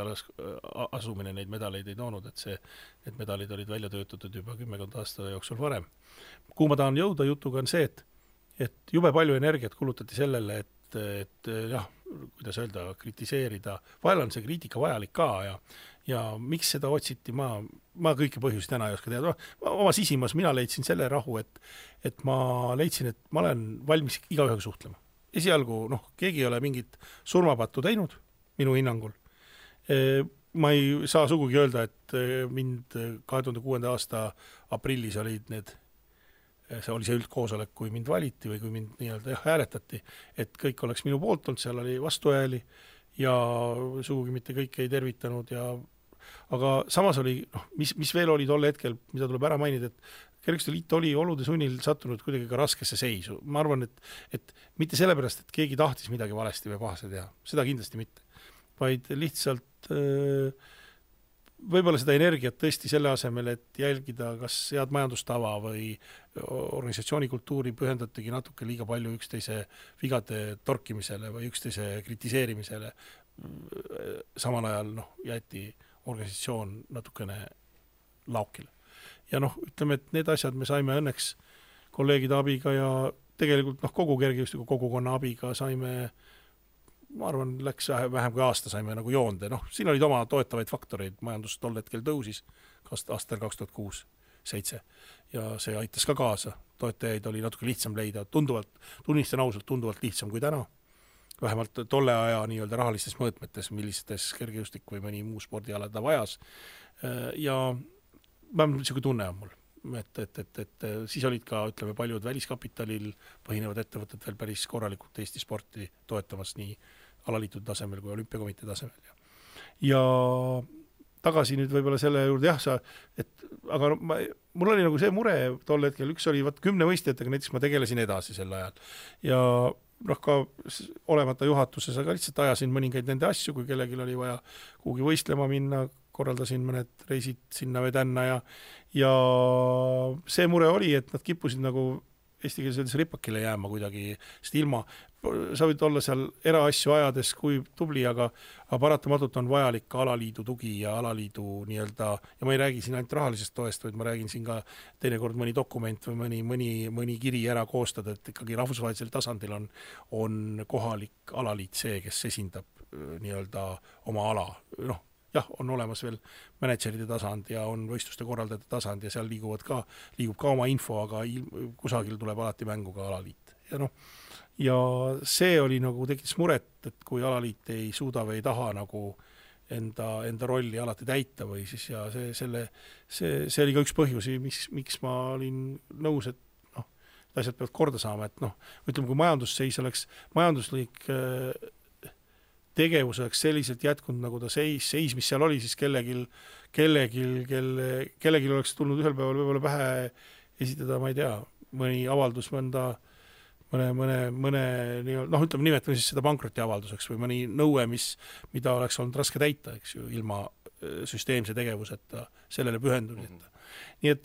asumine neid medaleid ei toonud, et need medalid olid välja töötatud juba 10 aasta jooksul varem. Kuhu ma tahan jõuda jutuga on see, et jube palju energiat kulutati sellele, et jah, kuidas öelda, kritiseerida. Vahel on see kriitika vajalik ka ja miks seda otsiti, ma kõiki põhjusi täna ei oska teada. Oma sisimas mina leidsin selle rahu, et ma leidsin, et ma olen valmis igaühega suhtlema. Esialgu, noh, keegi ei ole mingit surmapattu teinud, minu hinnangul. Ma ei saa sugugi öelda, et mind 2006. aasta aprillis olid see oli see üldkoosolek, kui mind valiti või kui mind nii-öelda hääletati, et kõik oleks minu poolt olnud, seal oli vastuhääli ja sugugi mitte kõik ei tervitanud aga samas oli, noh, mis veel oli tol hetkel, mida tuleb ära mainida, et Kergejõustiku Liit oli olude sunnil sattunud kuidagi ka raskesse seisu. Ma arvan, et mitte sellepärast, et keegi tahtis midagi valesti või pahase teha, seda kindlasti mitte, vaid lihtsalt võib-olla seda energiat tõesti selle asemel, et jälgida kas head majandustava või organisatsioonikultuuri pühendatigi natuke liiga palju üksteise vigade torkimisele või üksteise kritiseerimisele. Samal ajal jäeti organisatsioon natukene laukile. Ja ütleme, et need asjad me saime õnneks kolleegide abiga ja tegelikult kogu kergejõustiku kogukonna abiga saime, ma arvan, läks vähem kui aasta saime nagu joonde. Siin olid oma toetavaid faktoreid, majandus tol hetkel tõusis aastal 2006-2007 ja see aitas ka kaasa. Toetajaid oli natuke lihtsam leida, tunnistan ausalt, tunduvalt lihtsam kui täna. Vähemalt tolle aja nii-öelda rahalistes mõõtmetes, millistes kergejõustik või mõni muu spordiala ta vajas. Ja niisugune tunne on mul. Et siis olid ka, ütleme, paljud väliskapitalil põhinevad ettevõtted veel päris korralikult Eesti sporti toetamas nii alaliitude tasemel kui olümpiakomitee tasemel. Ja tagasi nüüd võib-olla selle juurde, aga mul oli nagu see mure tol hetkel, üks oli 10 võistlejatega, näiteks ma tegelesin edasi sel ajal ja ka olemata juhatuses, aga lihtsalt ajasin mõningaid nende asju, kui kellelgi oli vaja kuhugi võistlema minna, korraldasin mõned reisid sinna või tänna ja see mure oli, et nad kippusid nagu eestikeelses ripakile jääma kuidagi, sest ilma, sa võid olla seal eraasju ajades kui tubli, aga paratamatult on vajalik ka alaliidu tugi ja alaliidu nii-öelda, ja ma ei räägi siin ainult rahalisest toest, vaid ma räägin siin ka teinekord mõni dokument või mõni kiri ära koostada, et ikkagi rahvusvahelisel tasandil on kohalik alaliit see, kes esindab nii-öelda oma ala, jah, on olemas veel manageride tasand ja on võistluste korraldajate tasand ja seal liigub ka oma info, aga kusagil tuleb alati mängu ka alaliit. Ja see oli nagu tekitas muret, et kui alaliit ei suuda või ei taha nagu enda rolli alati täita või siis ja see oli ka üks põhjusi, miks ma olin nõus, et asjad peavad korda saama, et ütleme, kui majandusseis oleks, majanduslik tegevus oleks selliselt jätkunud, nagu ta seis, mis seal oli, siis kellelgi oleks tulnud ühel päeval võib-olla pähe esitada, ma ei tea, mõni avaldus mõne ütleme, nimetame siis seda pankrotiavalduseks või mõni nõue, mida oleks olnud raske täita, eks ju, ilma süsteemse tegevuseta, sellele pühendumiseta. Nii et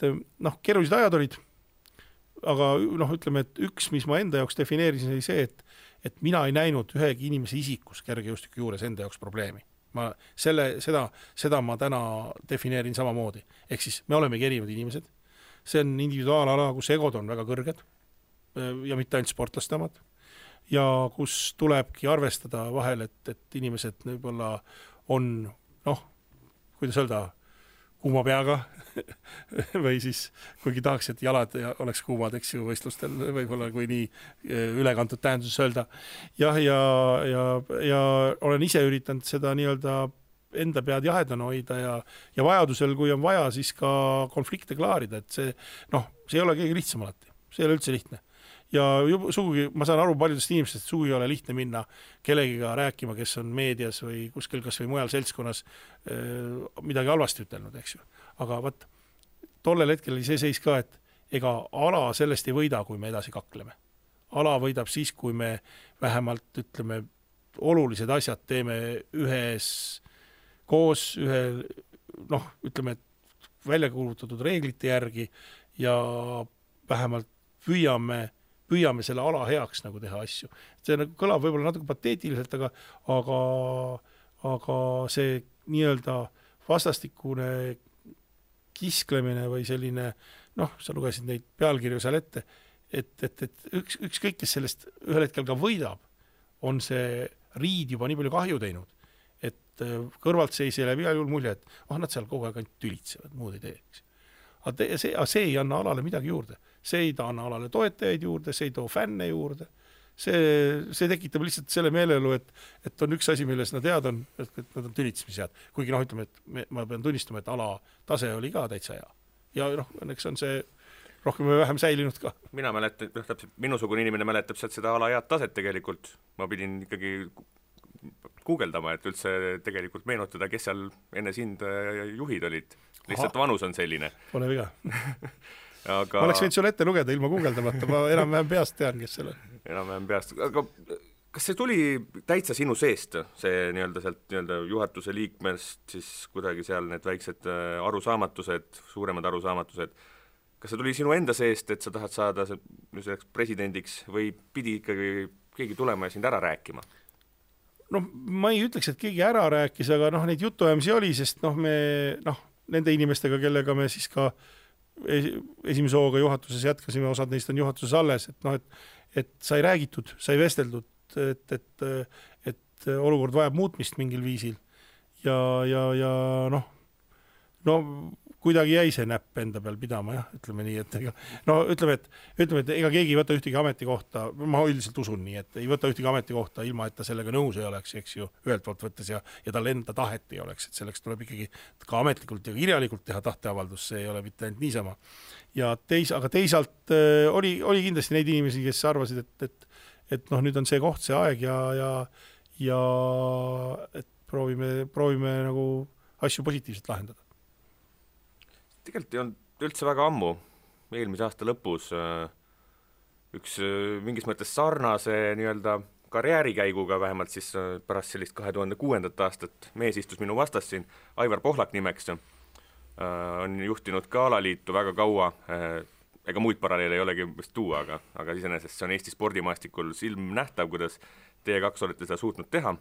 keerulised ajad olid, aga ütleme, et üks, mis ma enda jaoks defineerisin, oli see, et mina ei näinud ühegi inimese isikus kergejõustiku juures enda jaoks probleemi. Seda ma täna defineerin samamoodi. Ehk siis me olemegi erinevad inimesed. See on individuaalala, kus egod on väga kõrged ja mitte ainult sportlaste omad. Ja kus tulebki arvestada vahel, et inimesed võib-olla on, kuidas öelda, kuuma peaga või siis kuigi tahaks, et jalad oleks kuumad, eks ju, võistlustel võib-olla kui nii ülekantud tähenduses öelda. Jah, ja olen ise üritanud seda nii-öelda enda pead jahedana hoida ja vajadusel, kui on vaja, siis ka konflikte klaarida, et see ei ole kõige lihtsam alati, see ei ole üldse lihtne. Ja sugugi, ma saan aru paljudest inimestest, sugugi ei ole lihtne minna kellegiga rääkima, kes on meedias või kuskil kas või mujal seltskonnas midagi halvasti ütelnud, eks ju. Aga tollel hetkel oli see seis ka, et ega ala sellest ei võida, kui me edasi kakleme. Ala võidab siis, kui me vähemalt, ütleme, olulised asjad teeme ühes koos, ütleme, välja kuulutatud reeglite järgi ja vähemalt püüame selle ala heaks nagu teha asju. See kõlab võib-olla natuke pateetiliselt, aga see nii-öelda vastastikune kisklemine või selline, sa lugesid neid pealkirju seal ette, et ükskõik, kes sellest ühel hetkel ka võidab, on see riid juba nii palju kahju teinud, et kõrvalt seisi läbi igal juhul mulje, et nad seal kogu aeg ainult tülitsevad, muud ei teeks. Aga see ei anna alale midagi juurde. See ei anna alale toetajaid juurde, see ei too fänne juurde. See tekitab lihtsalt selle meelelu, et on üks asi, milles nad head on, et nad on tülitsemised. Kuigi ütleme, et ma pean tunnistama, et ala tase oli ka täitsa hea. Ja õnneks on see rohkem või vähem säilinud ka. Mina mäletan, täpselt minusugune inimene mäletab sealt seda ala head taset tegelikult. Ma pidin ikkagi guugeldama, et üldse tegelikult meenutada, kes seal enne sind juhid olid. Lihtsalt vanus on selline. Pole viga. Aga... Ma oleks võinud sulle ette lugeda ilma guugeldamata, ma enam-vähem peast tean, kes selle. Enam-vähem peast. Aga kas see tuli täitsa sinu seest, see nii-öelda sealt nii-öelda juhatuse liikmest, siis kuidagi seal need väiksed arusaamatused, suuremad arusaamatused, kas see tuli sinu enda seest, et sa tahad saada selleks presidendiks või pidi ikkagi keegi tulema ja sind ära rääkima? Ma ei ütleks, et keegi ära rääkis, aga neid jutuajamisi oli, sest nende inimestega, kellega me siis ka esimese hooga juhatuses jätkasime, osad neist on juhatuses alles, et sai räägitud, sai vesteldud, et olukord vajab muutmist mingil viisil ja kuidagi jäi see näpp enda peal pidama, jah, ütleme nii, et ütleme, et ega keegi ei võta ühtegi ametikohta, ma üldiselt usun nii, et ei võta ühtegi ametikohta ilma, et ta sellega nõus ei oleks, eks ju, ühelt poolt võttes ja tal enda tahet ei oleks, et selleks tuleb ikkagi ka ametlikult ja kirjalikult teha tahteavaldus, see ei ole mitte ainult niisama. Ja aga teisalt oli kindlasti neid inimesi, kes arvasid, et nüüd on see koht, see aeg ja et proovime nagu asju positiivselt lahendada. Tegelikult ei olnud üldse väga ammu, eelmise aasta lõpus üks mingis mõttes sarnase nii-öelda karjäärikäiguga, vähemalt siis pärast sellist 2006. aastat mees istus minu vastas siin, Aivar Pohlak nimeks, on juhtinud ka alaliitu väga kaua, ega muid paralleele ei olegi vist tuua, aga iseenesest see on Eesti spordimaastikul silmnähtav, kuidas teie kaks olete seda suutnud teha.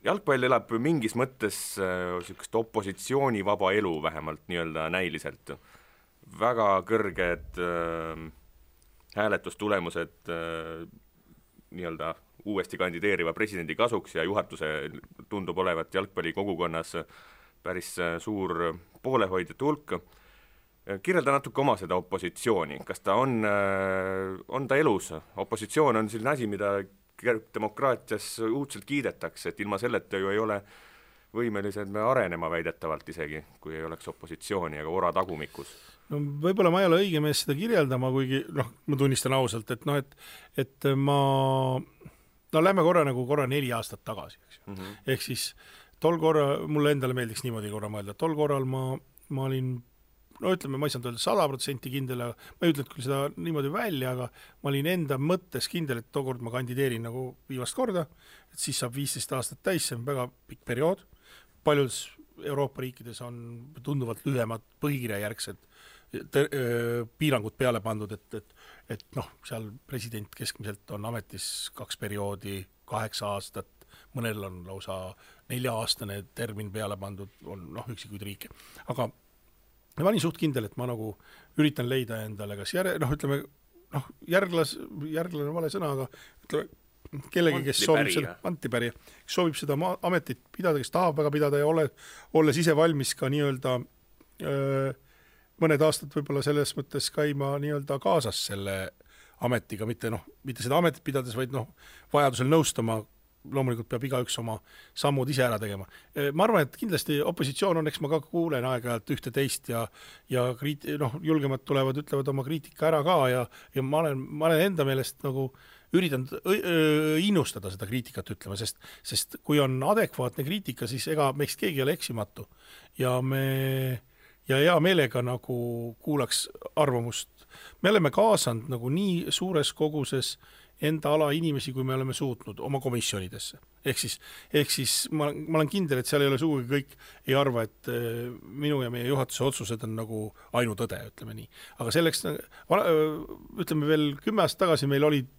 Jalgpall elab mingis mõttes sellist opositsioonivaba elu vähemalt nii-öelda näiliselt. Väga kõrged hääletustulemused nii-öelda uuesti kandideeriva presidendi kasuks ja juhatuse tundub olevat jalgpalli kogukonnas päris suur poolehoidjate hulk. Kirjelda natuke oma seda opositsiooni. Kas ta on ta elus? Opositsioon on selline asi, mida demokraatias uudselt kiidetakse, et ilma selleta ju ei ole võimelised me arenema väidetavalt isegi, kui ei oleks opositsiooni ega ora tagumikus. No võib-olla ma ei ole õige mees seda kirjeldama, kuigi ma tunnistan ausalt, et lähme korra 4 aastat tagasi, eks ju. Ehk siis tol korra, mulle endale meeldiks niimoodi korra mõelda, tol korral ma olin ütleme, ma ei saanud öelda 100% kindel, ma ei ütle küll seda niimoodi välja, aga ma olin enda mõttes kindel, et tookord ma kandideerin nagu viimast korda, et siis saab 15 aastat täis, see on väga pikk periood. Paljudes Euroopa riikides on tunduvalt lühemad põhikirjajärgsed piirangud peale pandud, et seal president keskmiselt on ametis 2 perioodi, 8 aastat, mõnel on lausa 4-aastane termin peale pandud, on üksikuid riike. Aga ma olin suht kindel, et ma nagu üritan leida endale, kas järglane vale sõna, aga ütleme kellegi, kes soovib seda antipärija, kes soovib seda ametit pidada, kes tahab väga pidada ja olles ise valmis ka nii-öelda mõned aastad võib-olla selles mõttes käima nii-öelda kaasas selle ametiga, mitte seda ametit pidades, vaid vajadusel nõustama, loomulikult peab igaüks oma sammud ise ära tegema. Ma arvan, et kindlasti opositsioon on, eks ma ka kuulen aeg-ajalt ühte teist ja julgemad tulevad, ütlevad oma kriitika ära ka ja ma olen enda meelest nagu üritan innustada seda kriitikat ütlema, sest kui on adekvaatne kriitika, siis ega meist keegi ei ole eksimatu ja hea meelega nagu kuulaks arvamust. Me oleme kaasanud nagu nii suures koguses enda ala inimesi, kui me oleme suutnud oma komisjonidesse. Ehk siis ma olen kindel, et seal ei ole sugugi kõik ei arva, et minu ja meie juhatuse otsused on nagu ainutõde, ütleme nii. Aga selleks, ütleme veel 10 aastat tagasi meil olid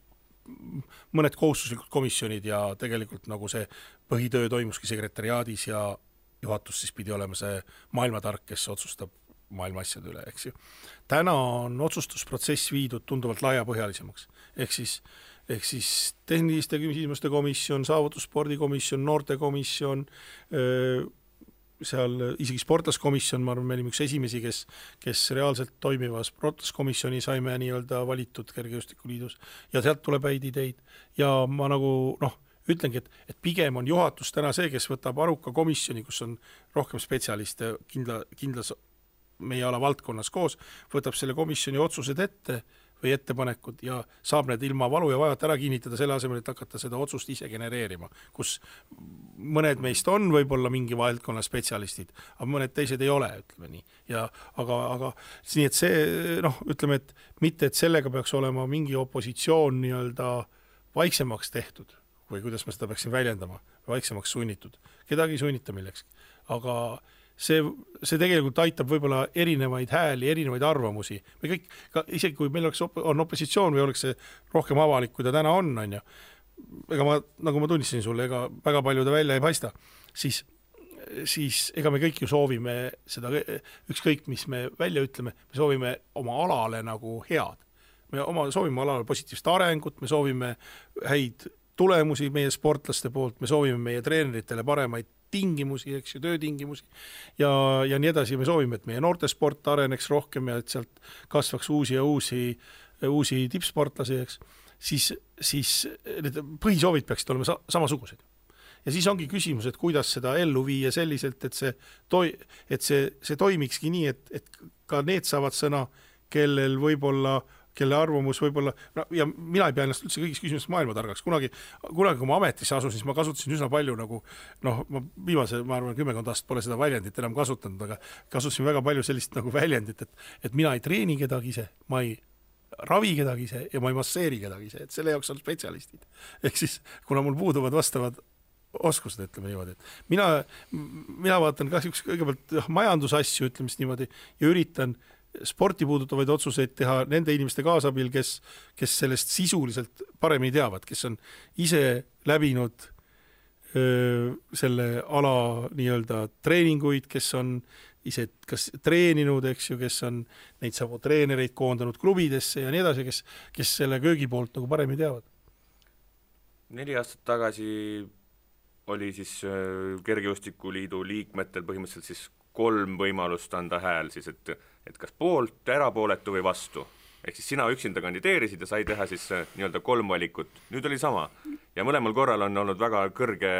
mõned kohustuslikud komisjonid ja tegelikult nagu see põhitöö toimuski sekretariaadis ja juhatus siis pidi olema see maailmatark, kes otsustab maailma asjade üle, eks ju. Täna on otsustusprotsess viidud tunduvalt laiapõhjalisemaks. Ehk siis tehniliste küsimuste komisjon, saavutusspordikomisjon, noortekomisjon, seal isegi sportlaskomisjon, ma arvan, me olime üks esimesi, kes reaalselt toimiva sportlaskomisjoni saime nii-öelda valitud Kergejõustikuliidus ja sealt tuleb häid ideid ja ma nagu ütlengi, et pigem on juhatus täna see, kes võtab aruka komisjoni, kus on rohkem spetsialiste kindlas meie ala valdkonnas koos, võtab selle komisjoni otsused ette või ettepanekud ja saab need ilma valu ja vajata ära kinnitada selle asemel, et hakata seda otsust ise genereerima, kus mõned meist on võib-olla mingi valdkonna spetsialistid, aga mõned teised ei ole, ütleme nii. Aga nii, et see, ütleme, et mitte, et sellega peaks olema mingi opositsioon nii-öelda vaiksemaks tehtud, või kuidas ma seda peaksin väljendama, vaiksemaks sunnitud. Kedagi ei sunnita millekski. Aga see tegelikult aitab võib-olla erinevaid hääli, erinevaid arvamusi. Me kõik, isegi kui meil on opositsioon või oleks see rohkem avalik, kui ta täna on ju, ega nagu ma tunnistasin sulle, ega väga palju ta välja ei paista, siis ega me kõik ju soovime seda, ükskõik mis me välja ütleme, me soovime oma alale nagu head. Me soovime alale positiivset arengut, me soovime häid tulemusi meie sportlaste poolt, me soovime meie treeneritele paremaid tingimusi, eks ju, töötingimusi ja nii edasi. Me soovime, et meie noortesport areneks rohkem ja et sealt kasvaks uusi tippsportlasi, eks. Siis need põhisoovid peaksid olema samasugused. Ja siis ongi küsimus, et kuidas seda ellu viia selliselt, et see toimikski nii, et ka need saavad sõna, kellel võib-olla kelle arvamus võib-olla, no ja mina ei pea ennast üldse kõigis küsimustes maailmatargaks, kunagi kui ma ametisse asusin, siis ma kasutasin üsna palju nagu, noh, ma viimase, ma arvan, 10 aastat pole seda väljendit enam kasutanud, aga kasutasin väga palju sellist nagu väljendit, et mina ei treeni kedagi ise, ma ei ravi kedagi ise ja ma ei masseeri kedagi ise, et selle jaoks on spetsialistid. Ehk siis, kuna mul puuduvad vastavad oskused, ütleme niimoodi, et mina vaatan kahjuks kõigepealt majandusasju, ütleme niimoodi, ja üritan sporti puudutavaid otsuseid teha nende inimeste kaasabil, kes sellest sisuliselt paremini teavad, kes on ise läbinud selle ala nii-öelda treeninguid, kes on ise kas treeninud, eks ju, kes on neid samu treenereid koondanud klubidesse ja nii edasi, kes selle köögi poolt nagu paremini teavad. 4 aastat tagasi oli siis Kergejõustikuliidu liikmetel põhimõtteliselt siis 3 võimalust anda hääl siis, et kas poolt, erapooletu või vastu. Ehk siis sina üksinda kandideerisid ja sai teha siis nii-öelda 3 valikut. Nüüd oli sama. Ja mõlemal korral on olnud väga kõrge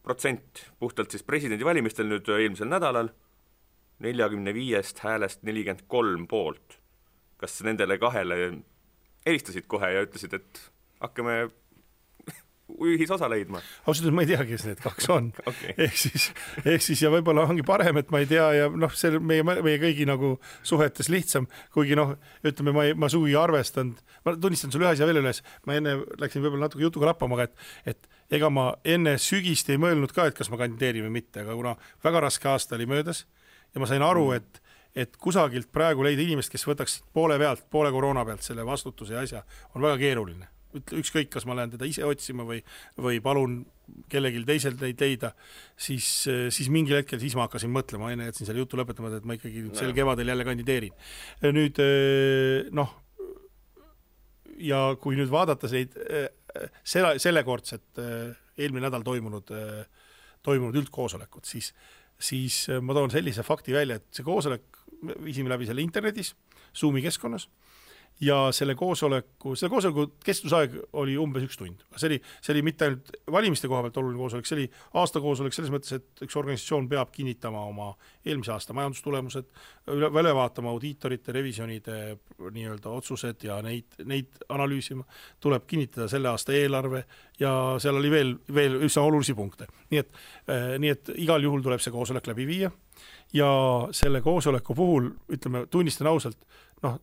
protsent puhtalt siis presidendivalimistel nüüd eelmisel nädalal 45 häälest 43 poolt. Kas nendele 2 helistasid kohe ja ütlesid, et hakkame ühisosa leidma? Ausalt, ma ei tea, kes need 2 on. Okay. Ehk siis ja võib-olla ongi parem, et ma ei tea ja noh, see meie kõigi nagu suhetes lihtsam, kuigi noh, ütleme, ma sugi arvestanud, ma tunnistan sulle ühes ja veel üles, ma enne läksin võib-olla natuke jutuga lappama, et ega ma enne sügist ei mõelnud ka, et kas ma kandideerin või mitte, aga kuna väga raske aasta oli möödas ja ma sain aru, et kusagilt praegu leida inimest, kes võtaks poole koroona pealt selle vastutuse ja asja, on väga keeruline. Ükskõik, kas ma lähen teda ise otsima või palun kellelgi teiselt neid leida, siis mingil hetkel siis ma hakkasin mõtlema, enne jätsin selle jutu lõpetama, et ma ikkagi sel kevadel jälle kandideerin. Nüüd, noh, ja kui nüüd vaadata sellekordset eelmine nädal toimunud üldkoosolekut, siis ma toon sellise fakti välja, et see koosolek viisime läbi selle internetis, Zoomi keskkonnas, ja selle koosoleku kestusaeg oli umbes 1 tund. See oli mitte ainult valimiste koha pealt oluline koosolek, see oli aastakoosolek selles mõttes, et üks organisatsioon peab kinnitama oma eelmise aasta majandustulemused, üle vaatama audiitorite, revisjonide nii-öelda otsused ja neid analüüsima, tuleb kinnitada selle aasta eelarve ja seal oli veel üsna olulisi punkte. Nii et igal juhul tuleb see koosolek läbi viia ja selle koosoleku puhul, ütleme, tunnistan ausalt, noh,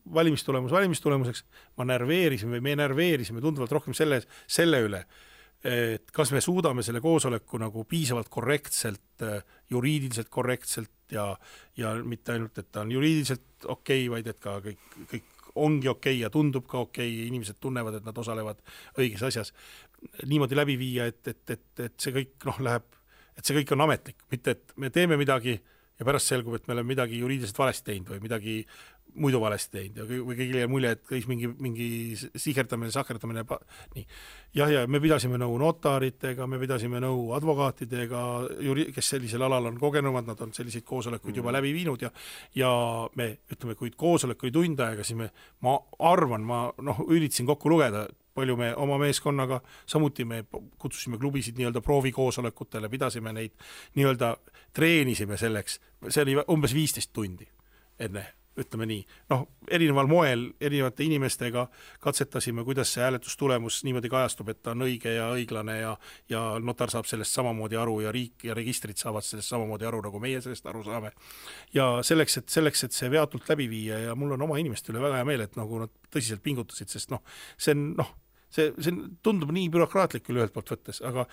valimistulemuseks me närveerisime tunduvalt rohkem selle üle, et kas me suudame selle koosoleku nagu piisavalt korrektselt, juriidiliselt korrektselt ja mitte ainult, et ta on juriidiliselt okei, vaid et ka kõik ongi okei ja tundub ka okei, inimesed tunnevad, et nad osalevad õiges asjas. Niimoodi läbi viia, et see kõik läheb, et see kõik on ametlik, mitte et me teeme midagi ja pärast selgub, et me oleme midagi juriidiliselt valesti teinud või midagi muidu valesti teinud või kõigile mulje, et käis mingi sahkerdamine, nii. Ja me pidasime nõu notaritega, me pidasime nõu advokaatidega, kes sellisel alal on kogenumad, nad on selliseid koosolekuid juba läbi viinud ja me, ütleme, kui koosolek oli tund aega, siis ma arvan, üritasin kokku lugeda, palju me oma meeskonnaga, samuti me kutsusime klubisid nii-öelda proovikoosolekutele, pidasime neid nii-öelda treenisime selleks, see oli umbes 15 tundi enne, ütleme nii. Noh, erineval moel, erinevate inimestega katsetasime, kuidas see hääletustulemus niimoodi kajastub, et ta on õige ja õiglane ja notar saab sellest samamoodi aru ja riik ja registrid saavad sellest samamoodi aru, nagu meie sellest aru saame. Ja selleks, et see veatult läbi viia ja mul on oma inimeste üle väga hea meel, et nagu nad tõsiselt pingutasid, sest see tundub nii bürokraatlik küll ühelt poolt võttes, aga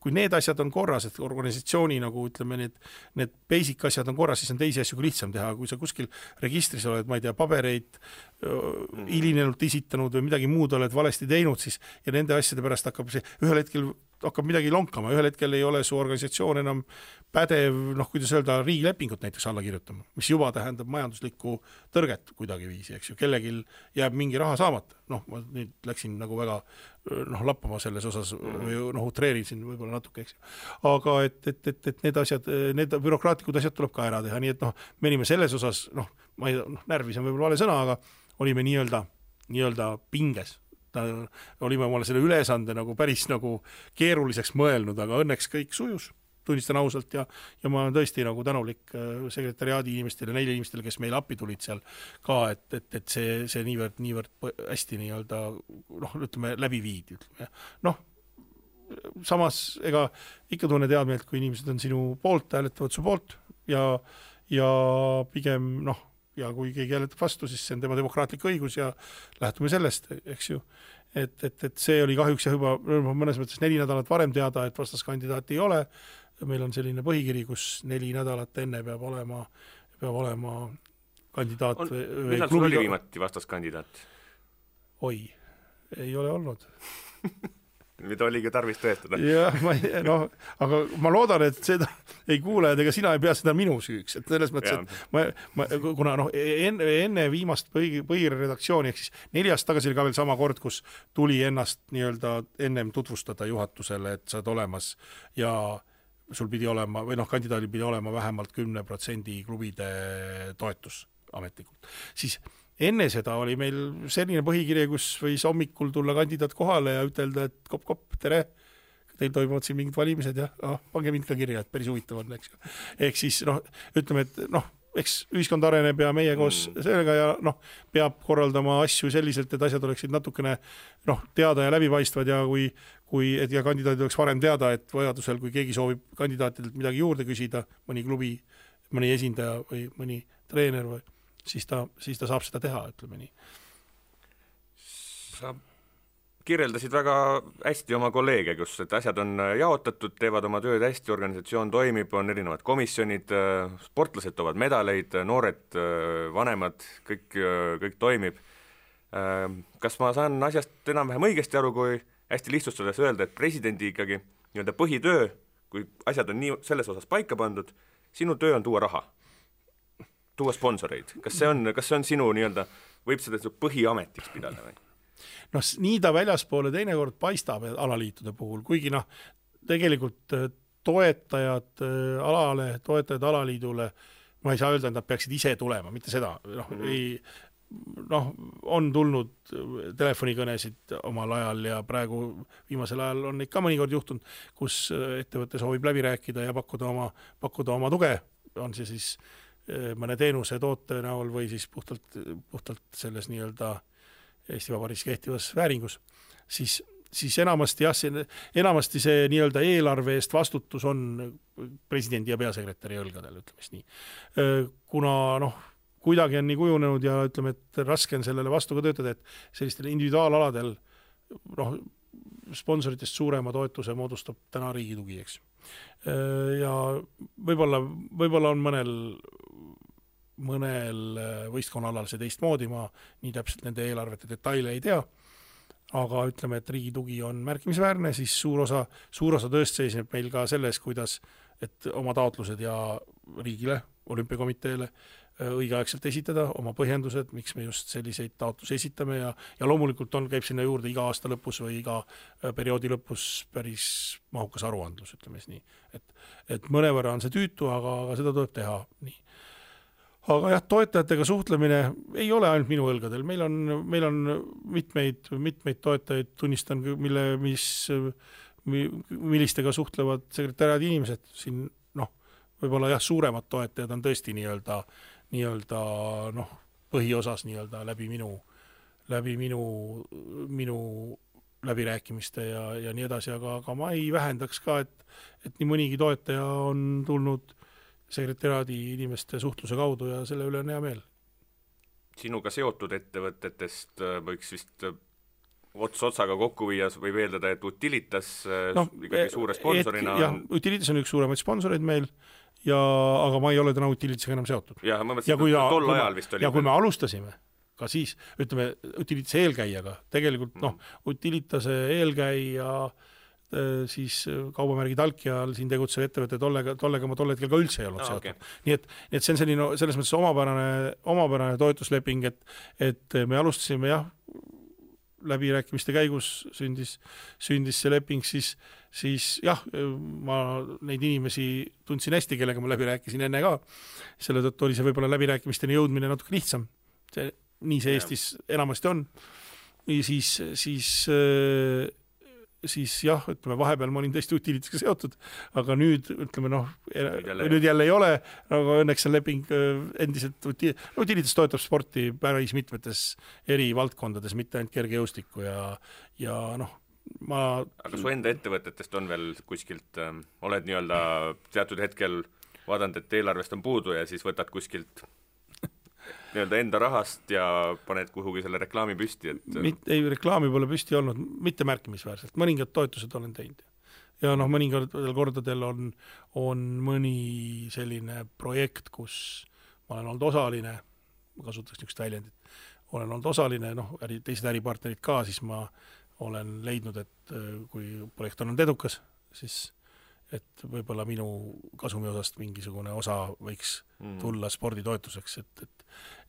kui need asjad on korras, et organisatsiooni nagu ütleme, need basic asjad on korras, siis on teisi asju lihtsam teha, kui sa kuskil registris oled, ma ei tea, pabereid hilinenult esitanud või midagi muud oled valesti teinud, siis ja nende asjade pärast ühel hetkel hakkab midagi lonkama, ühel hetkel ei ole su organisatsioon enam pädev, kuidas öelda, riigilepingut näiteks alla kirjutama, mis juba tähendab majanduslikku tõrget kuidagi viisi, eks ju, kellegil jääb mingi raha saamata. Ma nüüd läksin nagu väga lappama selles osas või utreerisin võib-olla natuke, eks ju. Aga et need asjad, need bürokraatlikud asjad tuleb ka ära teha, nii et me olime selles osas, närvis on võib-olla vale sõna, aga olime nii-öelda pinges. Olime omale selle ülesande nagu päris nagu keeruliseks mõelnud, aga õnneks kõik sujus tunnistan ausalt ja ma olen tõesti nagu tänulik sekretariaadi inimestele, neile inimestele, kes meile appi tulid seal ka, et see niivõrd hästi nii-öelda ütleme, läbi viidi, ütleme. Samas, ega ikka tunne teadmeelt, kui inimesed on sinu poolt, hääletavad su poolt ja pigem, ja kui keegi hääletab vastu, siis see on tema demokraatlik õigus ja lähtume sellest, eks ju. Et see oli kahjuks ja juba mõnes mõttes 4 nädalat varem teada, et vastaskandidaati ei ole. Meil on selline põhikiri, kus 4 nädalat enne peab olema kandidaat. Millal sul oli viimati vastaskandidaat? Oi, ei ole olnud. Mida oligi tarvis tõestada. Jah, aga ma loodan, et seda ei kuule, et ega sina ei pea seda minu süüks, et selles mõttes, et kuna enne viimast põhiredaktsiooni, ehk siis 4 aastat tagasi oli ka veel sama kord, kus tuli ennast nii-öelda ennem tutvustada juhatusele, et sa oled olemas ja sul pidi olema, või kandidaadil pidi olema vähemalt 10% klubide toetus ametlikult. Siis enne seda oli meil selline põhikirje, kus võis hommikul tulla kandidaat kohale ja ütelda, et kopp, tere, teil toimuvad siin mingid valimised ja pange mind ka kirja, et päris huvitav on, eks. Ehk siis, ütleme, et eks ühiskond areneb ja meie koos sellega ja peab korraldama asju selliselt, et asjad oleksid natukene teada ja läbipaistvad ja ja kandidaadid oleks varem teada, et vajadusel, kui keegi soovib kandidaatidelt midagi juurde küsida, mõni klubi, mõni esindaja või mõni treener või siis ta saab seda teha, ütleme nii. Sa kirjeldasid väga hästi oma kolleege, kus et asjad on jaotatud, teevad oma tööd hästi, organisatsioon toimib, on erinevad komisjonid, sportlased toovad medaleid, noored, vanemad, kõik toimib. Kas ma saan asjast enam-vähem õigesti aru, kui hästi lihtsustades öelda, et presidendi ikkagi nii-öelda põhitöö, kui asjad on nii selles osas paika pandud, sinu töö on tuua raha? Tuua sponsoreid. Kas see on sinu nii-öelda, võib seda põhiametiks pidada või? Nii ta väljaspoole teinekord paistab alaliitude puhul, kuigi tegelikult toetajad alaliidule, ma ei saa öelda, et nad peaksid ise tulema, mitte seda. On tulnud telefonikõnesid omal ajal ja praegu viimasel ajal on ikka mõnikord juhtunud, kus ettevõte soovib läbi rääkida ja pakkuda oma tuge, on see siis mõne teenuse toote näol või siis puhtalt selles nii-öelda Eesti Vabariigis kehtivas vääringus, siis enamasti see nii-öelda eelarve eest vastutus on presidendi ja peasekretäri õlgadel, ütleme nii. Kuna kuidagi on nii kujunenud ja ütleme, et raske on sellele vastu ka töötada, et sellistel individuaalaladel sponsoritest suurema toetuse moodustab täna riigi tugi, eks. Ja võib-olla on mõnel võistkonnaalal see teistmoodi, ma nii täpselt nende eelarvete detaile ei tea, aga ütleme, et riigi tugi on märkimisväärne, siis suur osa tööst seisneb meil ka selles, kuidas, et oma taotlused ja riigile, olümpiakomiteele õigeaegselt esitada, oma põhjendused, miks me just selliseid taotlusi esitame ja loomulikult käib sinna juurde iga aasta lõpus või iga perioodi lõpus päris mahukas aruandlus, ütleme nii. Et mõnevõrra on see tüütu, aga seda tuleb teha nii. Aga jah, toetajatega suhtlemine ei ole ainult minu õlgadel, meil on mitmeid toetajaid, tunnistan, millistega suhtlevad sekretariaadi inimesed, siin võib-olla jah, suuremad toetajad on tõesti nii-öelda põhiosas nii-öelda läbi minu läbirääkimiste ja nii edasi, aga ma ei vähendaks ka, et nii mõnigi toetaja on tulnud sekretariaadi inimeste suhtluse kaudu ja selle üle on hea meel. Sinuga seotud ettevõtetest võiks vist otsaga kokku viia või veeldada, et Utilitas ikkagi suure sponsorina jah, Utilitas on üks suuremaid sponsoreid meil, aga ma ei ole täna Utilitasega enam seotud. Ja ma mõtlesin, et tol ajal vist oli. Ja kui me alustasime, ka siis, ütleme, Utilitase eelkäijaga, tegelikult Utilitase eelkäija siis kaubamärgi Talkial siin tegutsev ettevõte tollega ma tol hetkel ka üldse ei olnud seotud. Okay. Nii et see on selline, selles mõttes omapärane toetusleping, et me alustasime jah, läbirääkimiste käigus sündis see leping, siis jah, ma neid inimesi tundsin hästi, kellega ma läbi rääkisin enne ka. Selle tõttu oli see võib-olla läbirääkimisteni jõudmine natuke lihtsam. Nii see Eestis enamasti on. Ja siis siis jah, ütleme vahepeal ma olin tõesti Utilitasega seotud, aga nüüd ütleme nüüd jälle ei ole, aga õnneks on leping endiselt Utilitas toetab sporti päris mitmetes eri valdkondades, mitte ainult kergejõustikku ja aga su enda ettevõtetest on veel kuskilt, oled nii-öelda teatud hetkel vaadanud, et eelarvest on puudu ja siis võtad kuskilt nii-öelda enda rahast ja paned kuhugi selle reklaami püsti, et ei, reklaami pole püsti olnud, mitte märkimisväärselt, mõningad toetused olen teinud. Ja mõningatel kordadel on mõni selline projekt, kus ma olen olnud osaline, ma kasutaks niisugust väljendit, olen olnud osaline, teised äripartnerid ka, siis ma olen leidnud, et kui projekt on olnud edukas, siis et võib-olla minu kasumi osast mingisugune osa võiks tulla sporditoetuseks,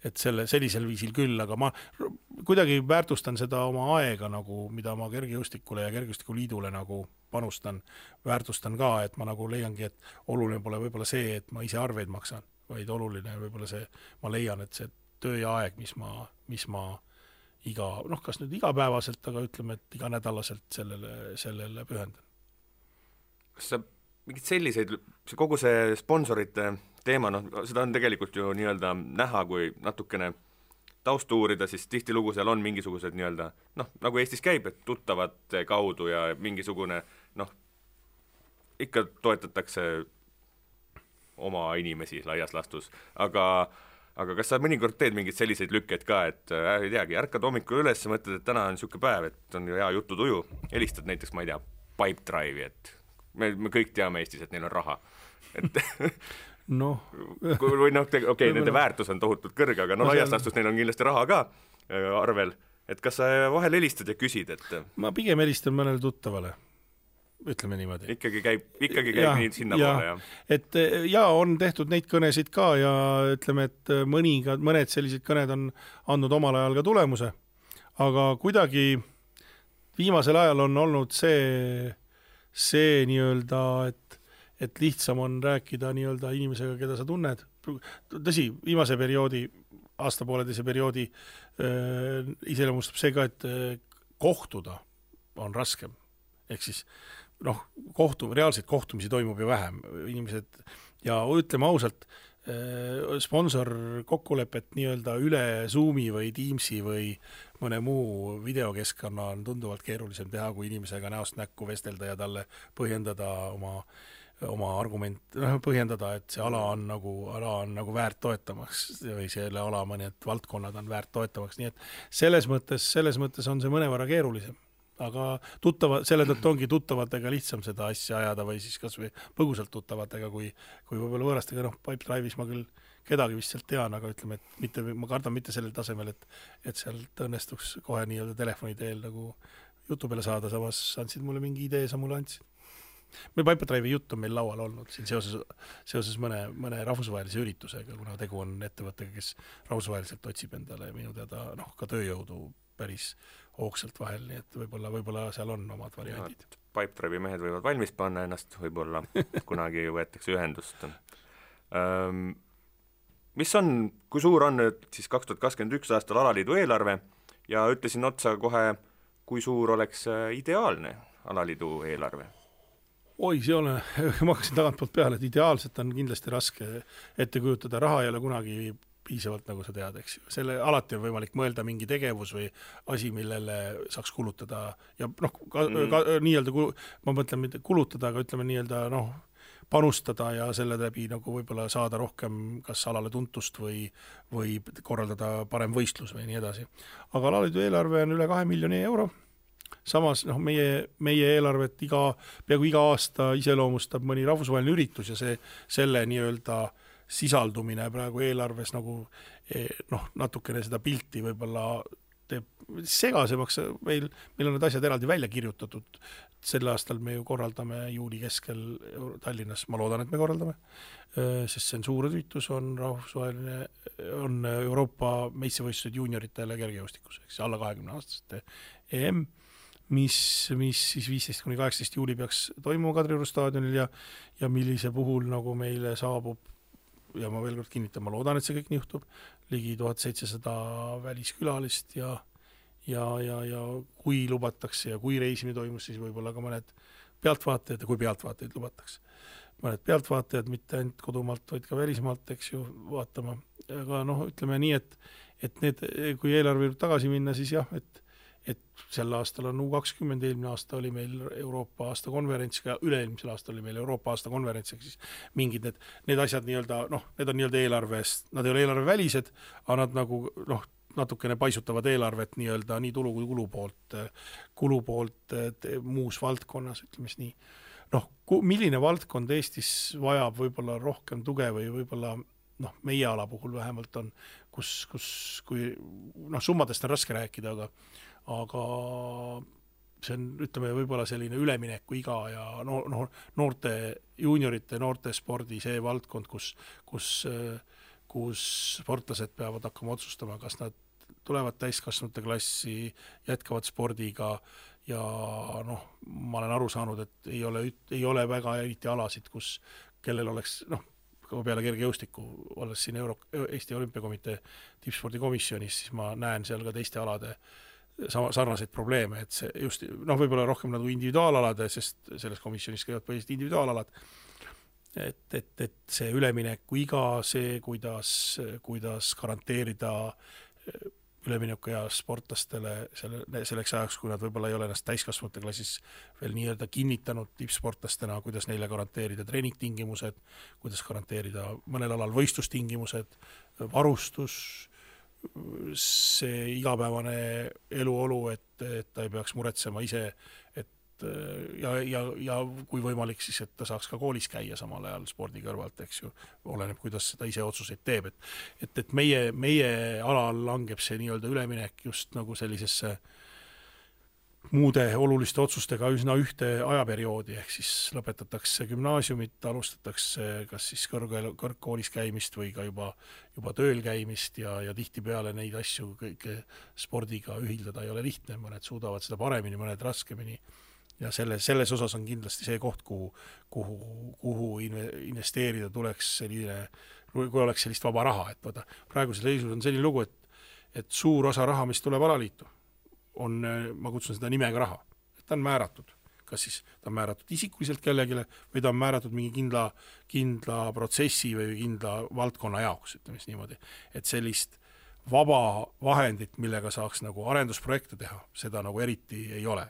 et sellisel viisil küll, aga ma kuidagi väärtustan seda oma aega, mida ma kergejõustikule ja kergejõustikuliidule panustan, väärtustan ka, et ma leiangi, et oluline pole võib-olla see, et ma ise arveid maksan, vaid oluline võib-olla see, ma leian, et see töö ja aeg, mis ma kas nüüd igapäevaselt, aga ütleme, et iganädalaselt sellele pühendan. Kas sa mingid selliseid, kogu see sponsorite teema, seda on tegelikult ju nii-öelda näha, kui natukene taustu uurida, siis tihtilugu seal on mingisugused nii-öelda, nagu Eestis käib, et tuttavate kaudu ja mingisugune, ikka toetatakse oma inimesi laias lastus, aga kas sa mõnikord teed mingeid selliseid lükkeid ka, et ei teagi, ärkad hommikul üles ja mõtled, et täna on niisugune päev, et on hea jututuju, helistad näiteks, ma ei tea, Pipedrive'i, et me kõik teame Eestis, et neil on raha. Et või nende väärtus on tohutult kõrge, aga laias lastus neil on kindlasti raha ka arvel. Et kas sa vahel helistad ja küsid, et ma pigem helistan mõnele tuttavale, ütleme niimoodi. Ikkagi käib nii sinna poole, jah. Et on tehtud neid kõnesid ka ja ütleme, et mõned sellised kõned on andnud omal ajal ka tulemuse, aga kuidagi viimasel ajal on olnud see nii-öelda, et lihtsam on rääkida nii-öelda inimesega, keda sa tunned. Tõsi, viimase perioodi, aastapooleteise perioodi iseloomustab see ka, et kohtuda on raskem. Ehk siis, reaalseid kohtumisi toimub ju vähem. Inimesed, ja ütleme ausalt, sponsor kokkulepet nii-öelda üle Zoomi või Teamsi või mõne muu videokeskkonna on tunduvalt keerulisem teha, kui inimesega näost näkku vestelda ja talle põhjendada oma argument, põhjendada, et see ala on nagu väärt toetamaks või selle ala mõned valdkonnad on väärt toetamaks, nii et selles mõttes on see mõnevõrra keerulisem. Aga selle tõttu ongi tuttavatega lihtsam seda asja ajada või siis kas või põgusalt tuttavatega, kui võib-olla võõrastega, Pipedrive'is ma küll kedagi vist sealt tean, aga ütleme, et ma kardan mitte sellel tasemel, et sealt õnnestuks kohe nii-öelda telefoni teel jutu peale saada, samas andsid mulle mingi idee, sa mulle andsid. Meil Pipedrive'i jutt on meil laual olnud siin seoses mõne rahvusvahelise üritusega, kuna tegu on ettevõttega, kes rahvusvaheliselt otsib endale minu teada ka tööjõudu päris hoogsalt vahel, nii et võib-olla seal on omad variandid. Pipedrive'i mehed võivad valmis panna ennast, võib-olla kunagi võetakse ühendust. Kui suur on nüüd siis 2021 aastal alaliidu eelarve ja ütlesin otsa kohe, kui suur oleks ideaalne alaliidu eelarve? Ma hakkasin tagantpoolt peale, et ideaalselt on kindlasti raske ette kujutada, raha ei ole kunagi piisavalt, nagu sa tead, eks ju. Alati on võimalik mõelda mingi tegevus või asi, millele saaks kulutada ja nii-öelda, ma mõtlen mitte kulutada, aga ütleme nii-öelda panustada ja selle läbi võib-olla saada rohkem kas alale tuntust või korraldada parem võistlus või nii edasi. Aga alaliidu eelarve on üle 2 miljoni euro. Samas meie eelarvet peaaegu iga aasta iseloomustab mõni rahvusvaheline üritus ja selle nii-öelda sisaldumine praegu eelarves natukene seda pilti võib-olla teeb segasemaks. Meil on need asjad eraldi välja kirjutatud. Sel aastal me ju korraldame juuli keskel Tallinnas, ma loodan, et me korraldame, sest see on suur üritus, on rahvusvaheline, on Euroopa meistrivõistlused juunioritele kergejõustikus, alla 20-aastaste EM, mis siis 15-18 juuli peaks toimuma Kadrioru staadionil ja millise puhul meile saabub, ja ma veel kord kinnitan, ma loodan, et see kõik nii juhtub, ligi 1700 väliskülalist ja ja kui lubatakse ja kui reisimine toimus, siis võib-olla ka mõned pealtvaatajad ja kui pealtvaatajaid lubatakse. Mõned pealtvaatajad, mitte ainult kodumaalt, vaid ka välismaalt, eks ju, vaatama. Aga ütleme nii, et need, kui eelarve tagasi minna, siis jah, et sel aastal on U20, eelmine aasta oli meil Euroopa aasta konverents, ka üle-eelmisel aastal oli meil Euroopa aasta konverents, ehk siis mingid need asjad need on eelarvest, nad ei ole eelarve välised, aga nad nagu natukene paisutavad eelarvet nii tulu kui kulu poolt muus valdkonnas, ütleme nii. Milline valdkond Eestis vajab võib-olla rohkem tuge või võib-olla meie ala puhul vähemalt on, kui summadest on raske rääkida, aga see on, ütleme, võib-olla selline ülemineku iga ja noorte, juuniorite, noorte spordi see valdkond, kus sportlased peavad hakkama otsustama, kas nad tulevad täiskasvanute klassi, jätkavad spordiga ja ma olen aru saanud, et ei ole väga eriti alasid, kellel oleks, peale kergejõustiku, olles siin Eesti Olümpiakomitee tippspordikomisjonis, siis ma näen seal ka teiste alade sarnaseid probleeme, et see just, võib-olla rohkem nagu individuaalalade, sest selles komisjonis käivad põhiliselt individuaalalad, et see ülemineku iga, see, kuidas garanteerida ülemineku ja sportlastele selleks ajaks, kui nad võib-olla ei ole ennast täiskasvanute klassis veel nii-öelda kinnitanud tippsportlastena, kuidas neile garanteerida treeningtingimused, kuidas garanteerida mõnel alal võistlustingimused, varustus, see igapäevane eluolu, et ta ei peaks muretsema ise, ja kui võimalik, siis et ta saaks ka koolis käia samal ajal spordi kõrvalt, eks ju, oleneb, kuidas seda ise otsuseid teeb, et meie alal langeb see nii-öelda üleminek just nagu sellisesse muude oluliste otsustega üsna ühte ajaperioodi, ehk siis lõpetatakse gümnaasiumit, alustatakse kas siis kõrgkoolis käimist või ka juba tööl käimist ja tihtipeale neid asju kõike spordiga ühildada ei ole lihtne, mõned suudavad seda paremini, mõned raskemini. Ja selles osas on kindlasti see koht, kuhu investeerida tuleks selline, kui oleks sellist vaba raha, et praegusel seisus on selline lugu, et suur osa raha, mis tuleb alaliitu, on, ma kutsun seda nimega raha, et ta on määratud, kas siis ta on määratud isikuliselt kellegile või ta on määratud mingi kindla protsessi või kindla valdkonna jaoks, ütleme siis niimoodi, et sellist vaba vahendit, millega saaks nagu arendusprojekte teha, seda nagu eriti ei ole.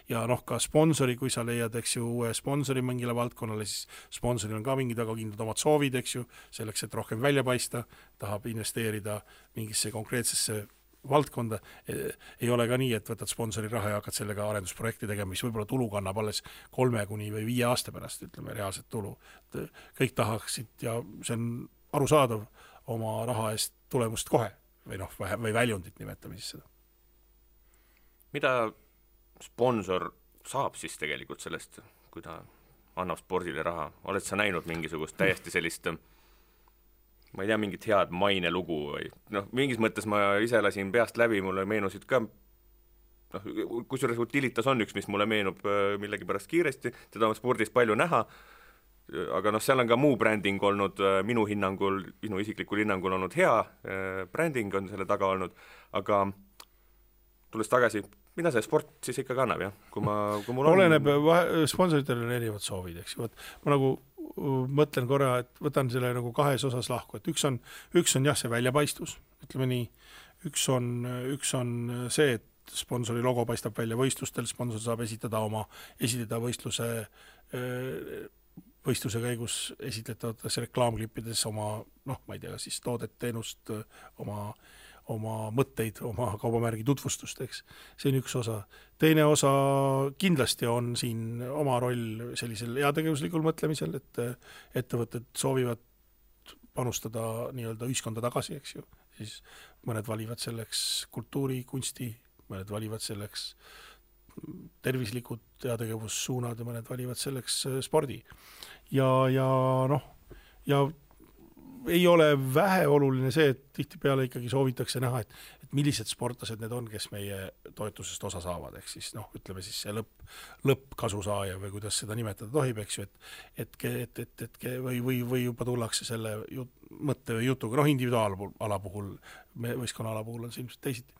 Ja ka sponsori, kui sa leiad, eks ju, uue sponsori mingile valdkonnale, siis sponsoril on ka mingid väga kindlad omad soovid, eks ju, selleks, et rohkem välja paista, tahab investeerida mingisse konkreetsesse valdkonda. Ei ole ka nii, et võtad sponsori raha ja hakkad sellega arendusprojekti tegema, mis võib-olla tulu kannab alles 3 kuni 5 aasta pärast, ütleme, reaalset tulu. Kõik tahaksid ja see on arusaadav oma raha eest tulemust kohe või väljundit nimetame siis seda. Mida sponsor saab siis tegelikult sellest, kui ta annab spordile raha? Oled sa näinud mingisugust täiesti sellist, ma ei tea, mingit head mainelugu või mingis mõttes ma ise lasin peast läbi, mulle meenusid ka, kusjuures Utilitas on üks, mis mulle meenub millegi pärast kiiresti, teda on spordis palju näha, aga seal on ka muu bränding olnud, minu isiklikul hinnangul olnud hea, bränding on selle taga olnud, aga tulles tagasi, mida see sport siis ikka kannab, jah? Kui mul oleneb, sponsoritel on erinevad soovid, eks ju. Ma nagu mõtlen korra, et võtan selle nagu kahes osas lahku, et üks on jah, see väljapaistvus, ütleme nii, üks on see, et sponsori logo paistab välja võistlustel, sponsor saab esitada võistluse käigus esitletavates reklaamklippides oma, ma ei tea, siis toodet, teenust, oma mõtteid, oma kaubamärgi tutvustust, eks. See on üks osa. Teine osa kindlasti on siin oma roll sellisel heategevuslikul mõtlemisel, et ettevõtted soovivad panustada nii-öelda ühiskonda tagasi, eks ju. Siis mõned valivad selleks kultuuri, kunsti, mõned valivad selleks tervislikud heategevussuunad ja mõned valivad selleks spordi. Ja ei ole vähe oluline see, et tihtipeale ikkagi soovitakse näha, et millised sportlased need on, kes meie toetusest osa saavad, ehk siis ütleme siis see lõppkasusaaja või kuidas seda nimetada tohib, eks ju, või juba tullakse selle mõtte või jutuga, individuaalala puhul, võistkonna ala puhul on see ilmselt teisiti.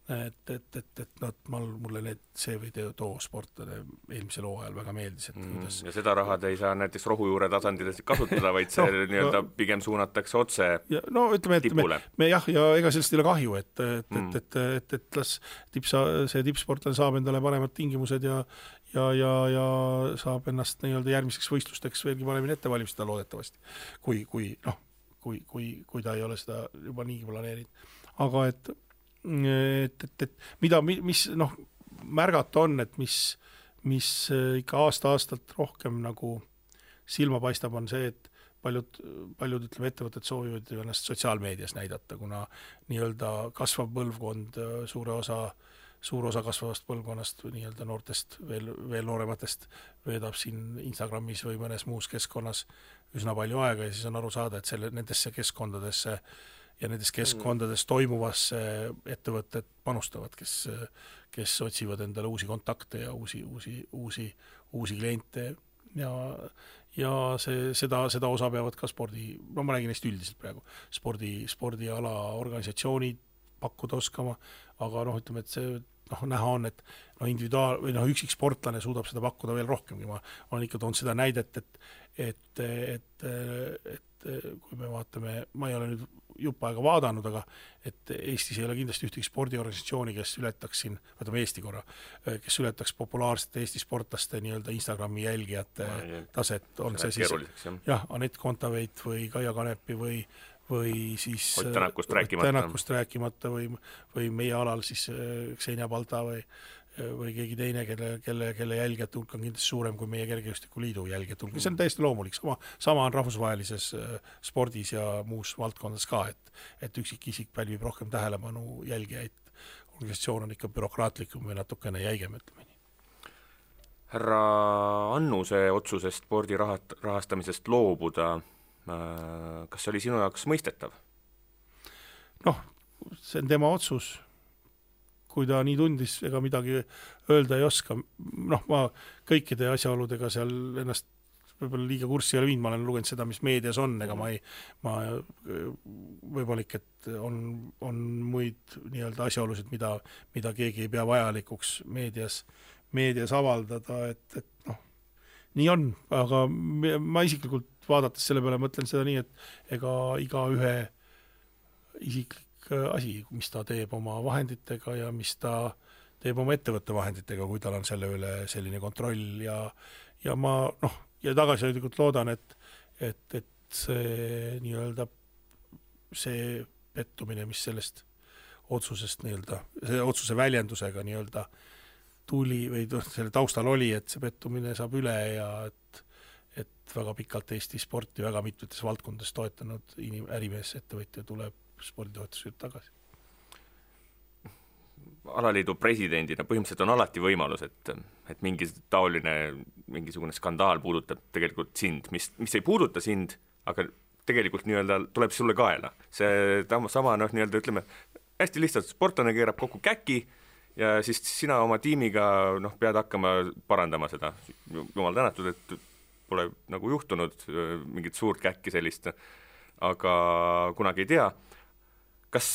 et mulle see või too sportlane eelmisel hooajal väga meeldis, et kuidas ja seda rahad ei saa näiteks rohujuure tasandil kasutada, vaid see nii-öelda pigem suunatakse otse tipule. Ja ega sellest ei ole kahju, et las see tippsportlane saab endale paremad tingimused ja saab ennast nii-öelda järgmiseks võistlusteks veelgi paremini ette valmistada loodetavasti, kui ta ei ole seda juba niigi planeerinud. Aga et mis märgata on, et mis ikka aasta-aastalt rohkem nagu silma paistab, on see, et paljud ütleme, ettevõtted soovivad ennast sotsiaalmeedias näidata, kuna nii-öelda kasvav põlvkond, suur osa kasvavast põlvkonnast nii-öelda noortest, veel noorematest veedab siin Instagramis või mõnes muus keskkonnas üsna palju aega ja siis on aru saada, et nendesse keskkondadesse ja nendes keskkondades toimuvasse ettevõtted panustavad, kes otsivad endale uusi kontakte ja uusi kliente ja seda osa peavad ka ma räägin neist üldiselt praegu, spordiala organisatsioonid pakkuda oskama, aga ütleme, et see näha on, et individuaal- või üksik sportlane suudab seda pakkuda veel rohkemgi. Ma olen ikka toonud seda näidet, et kui me vaatame, ma ei ole nüüd jupp aega vaadanud, aga et Eestis ei ole kindlasti ühtegi spordiorganisatsiooni, kes ületaks siin, võtame Eesti korra, kes ületaks populaarsete Eesti sportlaste nii-öelda Instagrami jälgijate taset, on see siis Anett Kontaveit või Kaia Kanepi või siis Ott Tänakust rääkimata või meie alal siis Xenia Balta või keegi teine, kelle jälgijate hulk on kindlasti suurem kui meie Kergejõustiku Liidu jälgijate hulk. See on täiesti loomulik. Sama on rahvusvahelises spordis ja muus valdkondades ka, et üksik isik pälvib rohkem tähelepanu jälgijaid. Organisatsioon on ikka bürokraatlikum või natukene jäigem, ütleme nii. Härra Annuse otsusest spordi rahastamisest loobuda, kas see oli sinu jaoks mõistetav? See on tema otsus. Kui ta nii tundis, ega midagi öelda ei oska. Ma kõikide asjaoludega seal ennast võib-olla liiga kurssi ei ole viinud, ma olen lugenud seda, mis meedias on, ega ma võimalik, et on muid nii-öelda asjaolusid, mida keegi ei pea vajalikuks meedias avaldada, et nii on, aga ma isiklikult vaadates selle peale mõtlen seda nii, et ega iga ühe isiklik asi, mis ta teeb oma vahenditega ja mis ta teeb oma ettevõtte vahenditega, kui tal on selle üle selline kontroll ja ma ja tagasihoidlikult loodan, et see nii-öelda see pettumine, mis sellest otsusest nii-öelda, see otsuse väljendusega nii-öelda tuli või selle taustal oli, et see pettumine saab üle ja et väga pikalt Eesti sporti väga mitmetes valdkondades toetanud ärimees, ettevõtja tuleb sporditoetused tagasi. Alaliidu presidendina põhimõtteliselt on alati võimalus, et mingisugune skandaal puudutab tegelikult sind, mis ei puuduta sind, aga tegelikult nii-öelda tuleb sulle kaela. See sama nii-öelda ütleme, hästi lihtsalt sportlane keerab kokku käki ja siis sina oma tiimiga pead hakkama parandama seda. Jumal tänatud, et pole nagu juhtunud mingit suurt käkki sellist, aga kunagi ei tea. Kas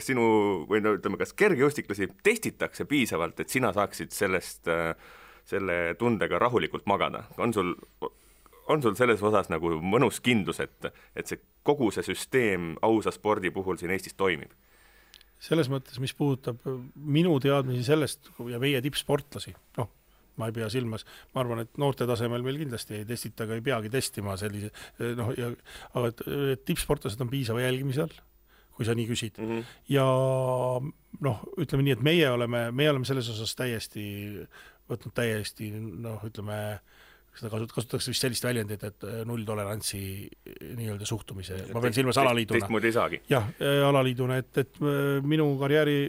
sinu, või ütleme, kas kergejõustiklasi testitakse piisavalt, et sina saaksid selle tundega rahulikult magada? On sul selles osas nagu mõnus kindlus, et see kogu see süsteem ausa spordi puhul siin Eestis toimib? Selles mõttes, mis puudutab minu teadmisi sellest ja meie tippsportlasi, ma ei pea silmas, ma arvan, et noorte tasemel meil kindlasti ei testita, aga ei peagi testima sellise, aga tippsportlased on piisava jälgimise all, kui sa nii küsid. Ja ütleme nii, et meie oleme selles osas võtnud täiesti, ütleme, seda kasutatakse vist sellist väljendit, et nulltolerantsi nii-öelda suhtumise. Ma pean silmas alaliiduna. Teistmoodi ei saagi. Jah, alaliiduna, et minu karjääri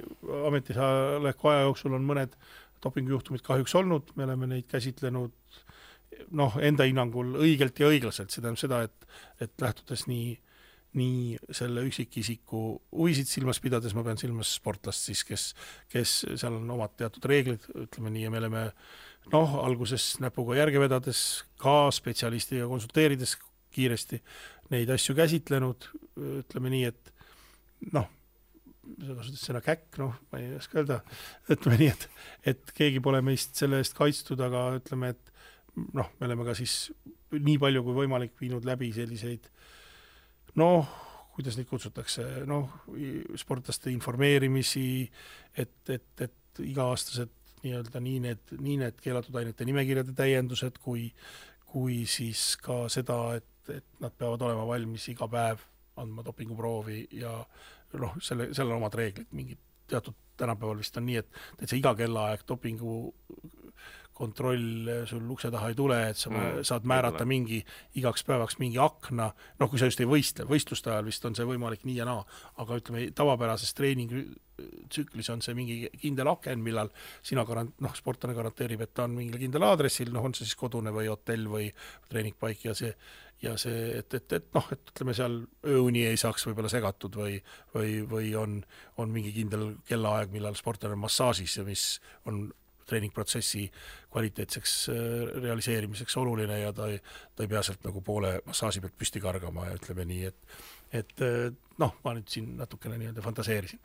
ametisoleku aja jooksul on mõned dopingujuhtumid kahjuks olnud, me oleme neid käsitlenud enda hinnangul õigelt ja õiglaselt, see tähendab seda, et lähtudes nii selle üksikisiku huvisid silmas pidades, ma pean silmas sportlast siis, kes seal on omad teatud reeglid, ütleme nii, ja me oleme alguses näpuga järge vedades ka spetsialistiga konsulteerides kiiresti neid asju käsitlenud, ütleme nii, et sa kasutad sõna käkk, noh, ma ei oska öelda, ütleme nii, et keegi pole meist selle eest kaitstud, aga ütleme, et noh, me oleme ka siis nii palju kui võimalik viinud läbi selliseid, noh, kuidas neid kutsutakse, noh, sportlaste informeerimisi, et iga-aastased nii-öelda nii need keelatud ainete nimekirjade täiendused, kui siis ka seda, et nad peavad olema valmis iga päev andma dopinguproovi ja noh, seal on omad reeglid, mingid teatud tänapäeval vist on nii, et see iga kellaaeg dopingu kontroll sul ukse taha ei tule, et sa saad määrata igaks päevaks mingi akna, noh, kui sa just ei võistle, võistluste ajal vist on see võimalik nii ja naa, aga ütleme, tavapärases treeningtsüklis on see mingi kindel aken, millal sina sportlane garanteerib, et ta on mingil kindel aadressil, noh, on see siis kodune või hotell või treeningpaik ja see, et noh, et ütleme seal ööuni ei saaks võib-olla segatud või on mingi kindel kellaaeg, millal sportlane on massaažis ja mis on treeningprotsessi kvaliteetseks realiseerimiseks oluline ja ta ei pea sealt nagu poole massaaži pealt püsti kargama ja ütleme nii, et noh, ma nüüd siin natukene nii-öelda fantaseerisin.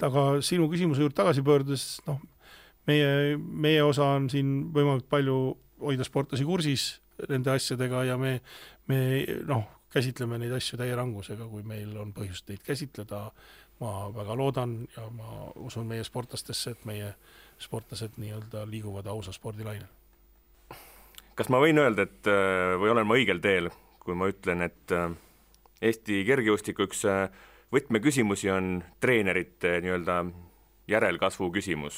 Aga sinu küsimuse juurde tagasi pöördudes, noh, meie osa on siin võimalikult palju hoida sportlasi kursis nende asjadega ja me noh, käsitleme neid asju täie rangusega, kui meil on põhjust neid käsitleda. Ma väga loodan ja ma usun meie sportlastesse, et meie sportlased nii-öelda liiguvad ausa spordilainel. Kas ma võin öelda, et või olen ma õigel teel, kui ma ütlen, et Eesti kergejõustiku üks võtmeküsimusi on treenerite nii-öelda järelkasvu küsimus?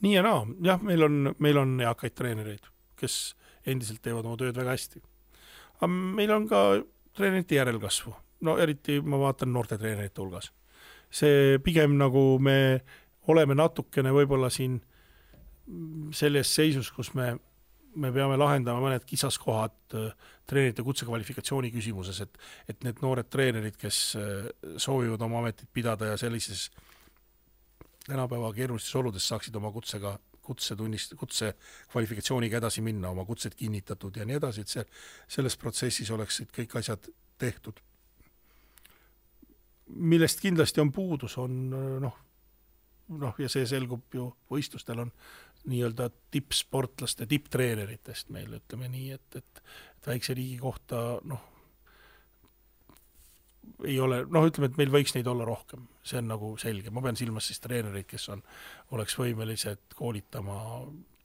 Nii ja naa, jah, meil on eakaid treenereid, kes endiselt teevad oma tööd väga hästi. Aga meil on ka treenerite järelkasvu. No eriti ma vaatan noorte treenerite hulgas. See pigem nagu me oleme natukene võib-olla siin selles seisus, kus me peame lahendama mõned kisaskohad treenerite kutsekvalifikatsiooni küsimuses, et need noored treenerid, kes soovivad oma ametit pidada ja sellises tänapäeva keerulistes oludes saaksid oma kutse kvalifikatsiooniga edasi minna, oma kutsed kinnitatud ja nii edasi, et selles protsessis oleksid kõik asjad tehtud. Millest kindlasti on puudus, on noh, ja see selgub ju võistlustel on nii-öelda tippsportlaste, tipptreeneritest meil, ütleme nii, et väikse riigi kohta, noh, ei ole, noh, ütleme, et meil võiks neid olla rohkem, see on nagu selge, ma pean silmas siis treenereid, kes oleks võimelised koolitama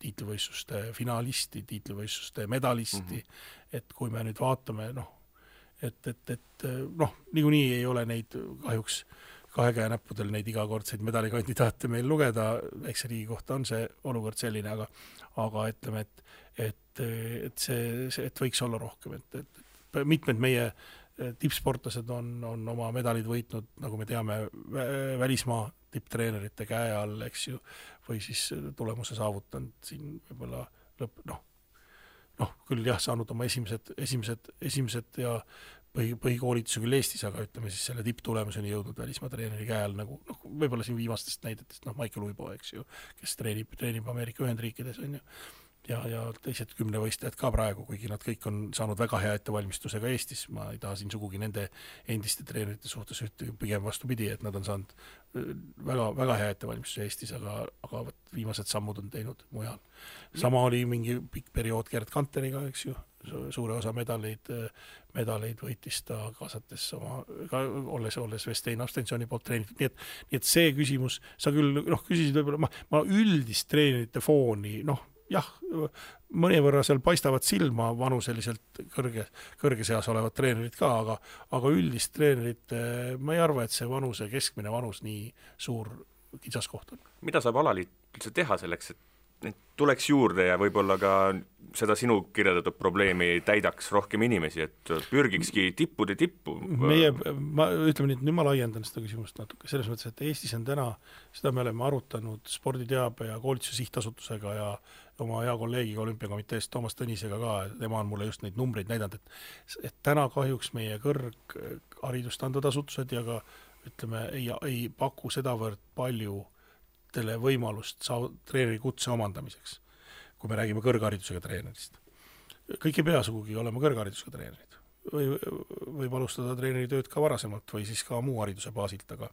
tiitlivõistluste finalisti, tiitlivõistluste medalisti, et kui me nüüd vaatame, noh, et noh, niikuinii ei ole neid kahjuks kahe käe näppudel neid igakordseid medalikandidaate meil lugeda, väikse riigi kohta on see olukord selline, aga ütleme, et võiks olla rohkem, et mitmed meie tippsportlased on oma medalid võitnud, nagu me teame, välismaa tipptreenerite käe all, eks ju, või siis tulemuse saavutanud siin võib-olla noh, küll jah, saanud oma esimesed ja põhikoolituse küll Eestis, aga ütleme siis selle tipptulemuseni jõudnud välismaa treeneri käe all, nagu võib-olla siin viimastest näidetest, Michael Uibo, eks ju, kes treenib Ameerika Ühendriikides, on ju, ja teised 10 võistlejad ka praegu, kuigi nad kõik on saanud väga hea ettevalmistusega Eestis, ma ei taha siin sugugi nende endiste treenerite suhtes pigem vastupidi, et nad on saanud väga, väga hea ettevalmistuse Eestis, aga viimased sammud on teinud mujal. Sama oli mingi pikk periood Gerd Kanteriga, eks ju, suure osa medaleid võitis ta kaasates olles Vestein Abstensjoni poolt treenitud. Nii et see küsimus, sa küll küsisid võib-olla, ma üldist treenerite fooni, jah, mõnevõrra seal paistavad silma vanuseliselt kõrge seas olevad treenerid ka, aga üldist treenerit ma ei arva, et see keskmine vanus nii suur kitsaskoht on. Mida saab alaliit üldse teha selleks, et tuleks juurde ja võib-olla ka seda sinu kirjeldatud probleemi täidaks rohkem inimesi, et pürgikski tippude tippu? Ütleme nii, nüüd ma laiendan seda küsimust natuke, selles mõttes, et Eestis on täna, seda me oleme arutanud sporditeabe ja koolituse sihtasutusega ja oma hea kolleegiga olümpiakomiteest Toomas Tõnisega ka, tema on mulle just neid numbreid näidanud, et täna kahjuks meie kõrgharidust andvad asutused ja ka ütleme, ei paku sedavõrd palju võimalust treeneri kutse omandamiseks, kui me räägime kõrgharidusega treenerist. Kõik ei pea sugugi olema kõrgharidusega treenerid. võib alustada treeneri tööd ka varasemalt või siis ka muu hariduse baasilt, aga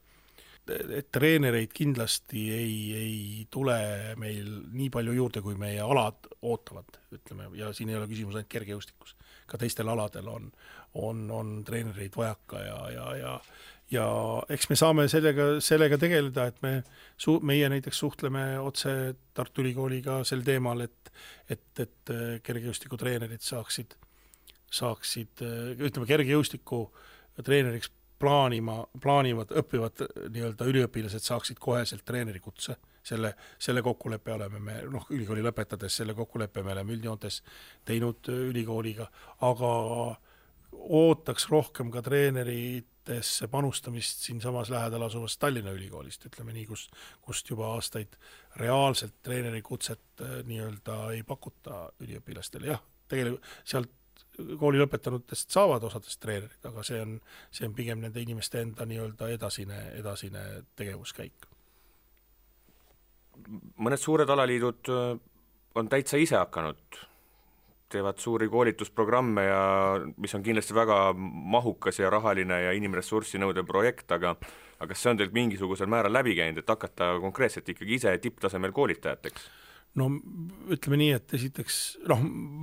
et treenereid kindlasti ei tule meil nii palju juurde, kui meie alad ootavad, ütleme, ja siin ei ole küsimus ainult kergejõustikus. Ka teistel aladel on treenereid vajaka ja eks me saame sellega tegeleda, et meie näiteks suhtleme otse Tartu Ülikooliga sel teemal, et kergejõustikutreenerid saaksid, ütleme, kergejõustiku treeneriks plaanivad, õppivad nii-öelda üliõpilased saaksid koheselt treenerikutse. Selle kokkuleppe oleme me, ülikooli lõpetades selle kokkuleppe me oleme üldjoontes teinud ülikooliga, aga ootaks rohkem ka treeneritesse panustamist siin samas lähedal asuvast Tallinna ülikoolist, ütleme nii, kust juba aastaid reaalselt treenerikutset nii-öelda ei pakuta üliõpilastele. Jah, tegelikult sealt kooli lõpetanutest saavad osadest treenerid, aga see on pigem nende inimeste enda nii-öelda edasine tegevuskäik. Mõned suured alaliidud on täitsa ise hakanud, teevad suuri koolitusprogramme ja mis on kindlasti väga mahukas ja rahaline ja inimressurssi nõudev projekt, aga see on teilt mingisugusel määral läbi käinud, et hakata konkreetselt ikkagi ise tipptasemel koolitajateks? No ütleme nii, et esiteks,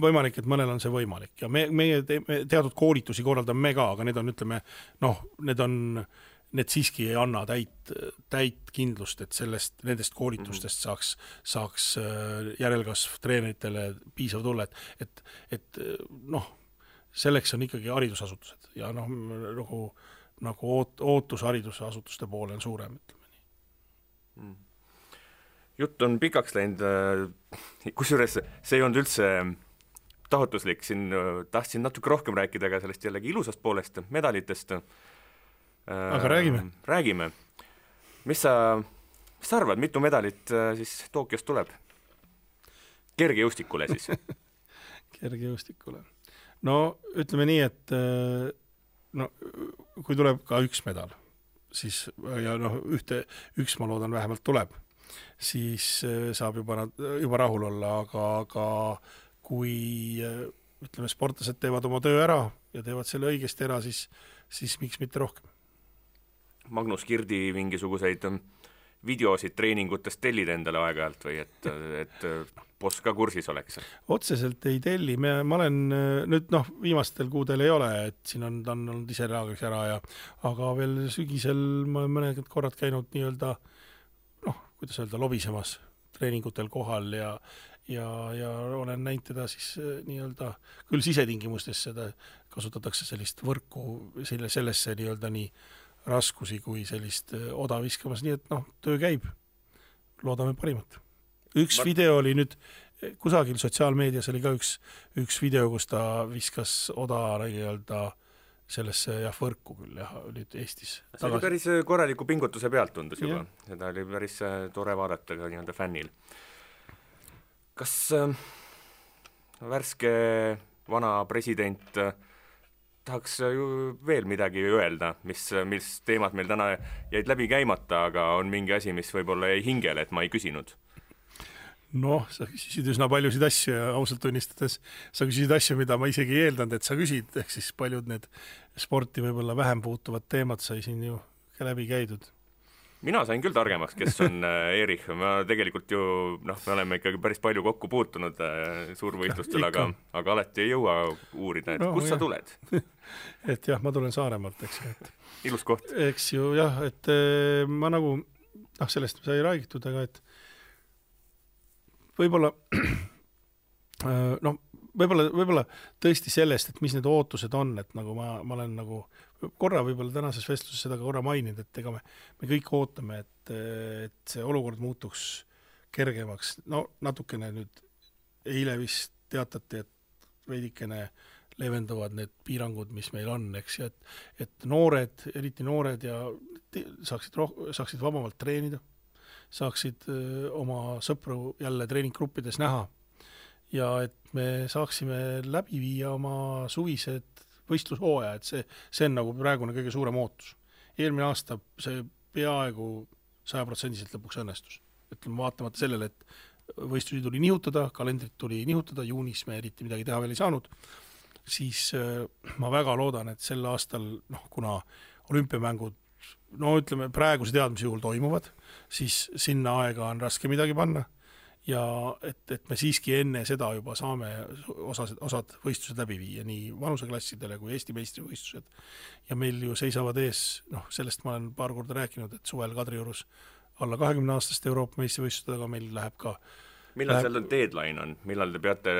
võimalik, et mõnel on see võimalik ja meie teatud koolitusi korraldame me ka, aga need on, ütleme, need siiski ei anna täit kindlust, et nendest koolitustest saaks järelkasv treeneritele piisav tulla, et selleks on ikkagi haridusasutused ja nagu ootus haridusasutuste poole on suurem, ütleme nii. Jutt on pikaks läinud, kusjuures see ei olnud üldse taotluslik, siin tahtsin natuke rohkem rääkida ka sellest jällegi ilusast poolest, medalitest. Aga räägime. Mis sa arvad, mitu medalit siis Tokyos tuleb? Kergejõustikule siis. Kergejõustikule. No ütleme nii, et kui tuleb ka üks medal, siis ja üks ma loodan vähemalt tuleb, siis saab juba rahul olla, aga kui ütleme, sportlased teevad oma töö ära ja teevad selle õigesti ära, siis miks mitte rohkem. Magnus Kirdi mingisuguseid videosid treeningutest tellid endale aeg-ajalt või et boss ka kursis oleks? Otseselt ei telli, ma olen nüüd viimastel kuudel ei ole, et siin ta on olnud ise reagiks ära aga veel sügisel ma olen mõned korrad käinud nii-öelda kuidas öelda, lobisemas treeningutel kohal ja olen näinud teda siis nii-öelda, küll sisetingimustes seda kasutatakse sellist võrku sellesse nii-öelda nii raskusi kui sellist oda viskamas, nii et töö käib. Loodame parimat. Üks video oli nüüd, kusagil sotsiaalmeedias oli ka üks video, kus ta viskas oda nii-öelda sellesse võrku küll nüüd Eestis. See oli päris korraliku pingutuse pealt tundus juba. Seda oli päris tore vaadata ka nii-öelda fännil. Kas värske vana president tahaks ju veel midagi öelda, mis teemad meil täna jäid läbi käimata, aga on mingi asi, mis võib-olla jäi hingele, et ma ei küsinud? Sa küsisid üsna paljusid asju ja ausalt tunnistades sa küsisid asju, mida ma isegi ei eeldanud, et sa küsid, ehk siis paljud need sporti võib-olla vähem puutuvad teemad sai siin ju ka läbi käidud. Mina sain küll targemaks, kes on Erich, ma tegelikult ju, me oleme ikkagi päris palju kokku puutunud suurvõistlustel, aga alati ei jõua uurida, et kust sa tuled? Et jah, ma tulen Saaremaalt, eks ju. Ilus koht. Eks ju jah, et ma nagu, sellest sai räägitud, aga et võib-olla tõesti sellest, et mis need ootused on, et nagu ma olen nagu korra võib-olla tänases vestluses seda korra maininud, et ega me kõik ootame, et see olukord muutuks kergemaks. Natukene nüüd eile vist teatati, et veidikene leevenduvad need piirangud, mis meil on, eks, et noored, eriti noored ja saaksid vabamalt treenida, saaksid oma sõpru jälle treeninggruppides näha ja et me saaksime läbi viia oma suvised võistlushooaja, et see on nagu praegune kõige suurem ootus. Eelmine aasta see peaaegu 100% lõpuks õnnestus. Ütleme, vaatamata sellele, et võistlusi tuli nihutada, kalendrit tuli nihutada, juunis me eriti midagi teha veel ei saanud, siis ma väga loodan, et sel aastal, kuna olümpiamängud, ütleme praeguse teadmise juhul toimuvad, siis sinna aega on raske midagi panna ja et me siiski enne seda juba saame osad võistlused läbi viia, nii vanuseklassidele kui Eesti meistrivõistlused. Ja meil ju seisavad ees, sellest ma olen paar korda rääkinud, et suvel Kadriorus alla 20-aastaste Euroopa meistrivõistlustega meil läheb ka millal seal deadline on? Millal te peate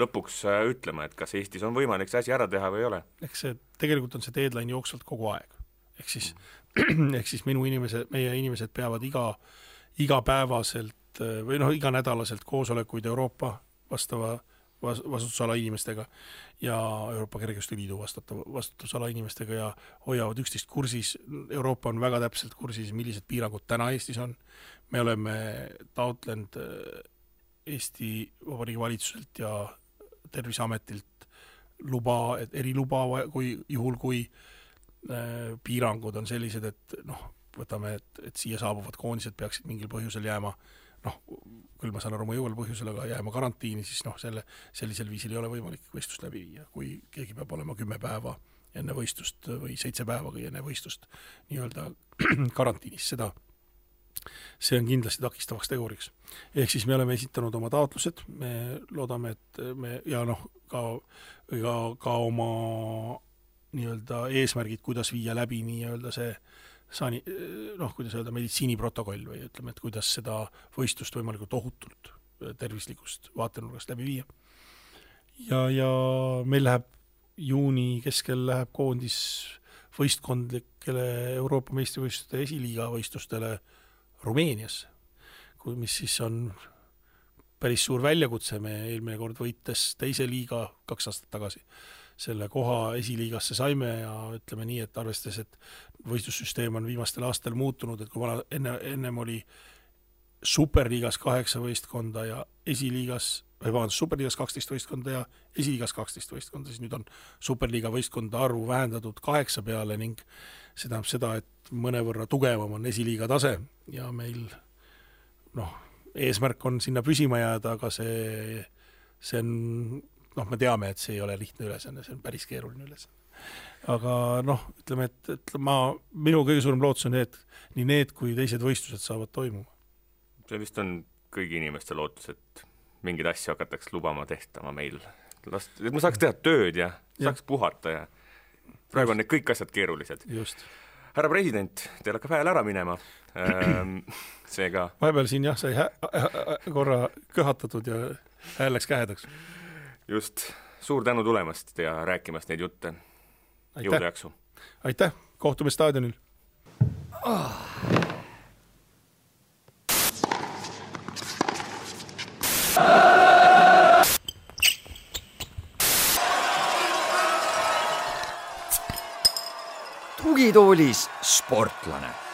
lõpuks ütlema, et kas Eestis on võimalik see asi ära teha või ei ole? Tegelikult on see deadline jooksvalt kogu aeg. Ehk siis meie inimesed peavad igapäevaselt või iganädalaselt koosolekuid Euroopa vastava vastutusala inimestega ja Euroopa Kergejõustikuliidu vastutusala inimestega ja hoiavad üksteist kursis. Euroopa on väga täpselt kursis, millised piirangud täna Eestis on. Me oleme taotlenud Eesti Vabariigi valitsuselt ja Terviseametilt eriluba, kui piirangud on sellised, et võtame, et siia saabuvad koondised peaksid mingil põhjusel jääma, küll ma saan aru mõjuval põhjusel, aga jääma karantiini, siis sellisel viisil ei ole võimalik võistlust läbi viia, kui keegi peab olema 10 päeva enne võistlust või 7 päeva enne võistlust nii-öelda karantiinis. See on kindlasti takistavaks teguriks. Ehk siis me oleme esitanud oma taotlused, me loodame, et me ja ka oma nii-öelda eesmärgid, kuidas viia läbi nii-öelda see kuidas öelda, meditsiiniprotokoll või ütleme, et kuidas seda võistlust võimalikult ohutult tervislikust vaatenurgast läbi viia. Ja meil läheb juuni keskel läheb koondis võistkondlikele Euroopa meistrivõistluste esiliiga võistlustele Rumeeniasse, mis siis on päris suur väljakutse. Me eelmine kord võites teise liiga 2 aastat tagasi selle koha esiliigasse saime ja ütleme nii, et arvestades, et võistlussüsteem on viimastel aastal muutunud, et kui ennem oli superliigas 8 võistkonda ja superliigas 12 võistkonda ja esiliigas 12 võistkonda, siis nüüd on superliiga võistkonda arvu vähendatud 8 peale ning see tähendab seda, et mõnevõrra tugevam on esiliiga tase ja meil eesmärk on sinna püsima jääda, aga see on me teame, et see ei ole lihtne ülesanne, see on päris keeruline ülesanne. Aga ütleme, et minu kõige suurem lootus on nii need kui teised võistlused saavad toimuma. See vist on kõigi inimeste lootus, et mingid asju hakatakse lubama tehtama meil. Et ma saaks teha tööd ja saaks puhata ja praegu on need kõik asjad keerulised. Just. Härra president, teil hakkab hääl ära minema. Seega... Vahepeal siin sai korra köhatatud ja hääl läks kähedaks. Just, suur tänu tulemast ja rääkimast neid jutte. Jõudu jaksu. Aitäh, kohtume staadionil. Tugitoolis sportlane.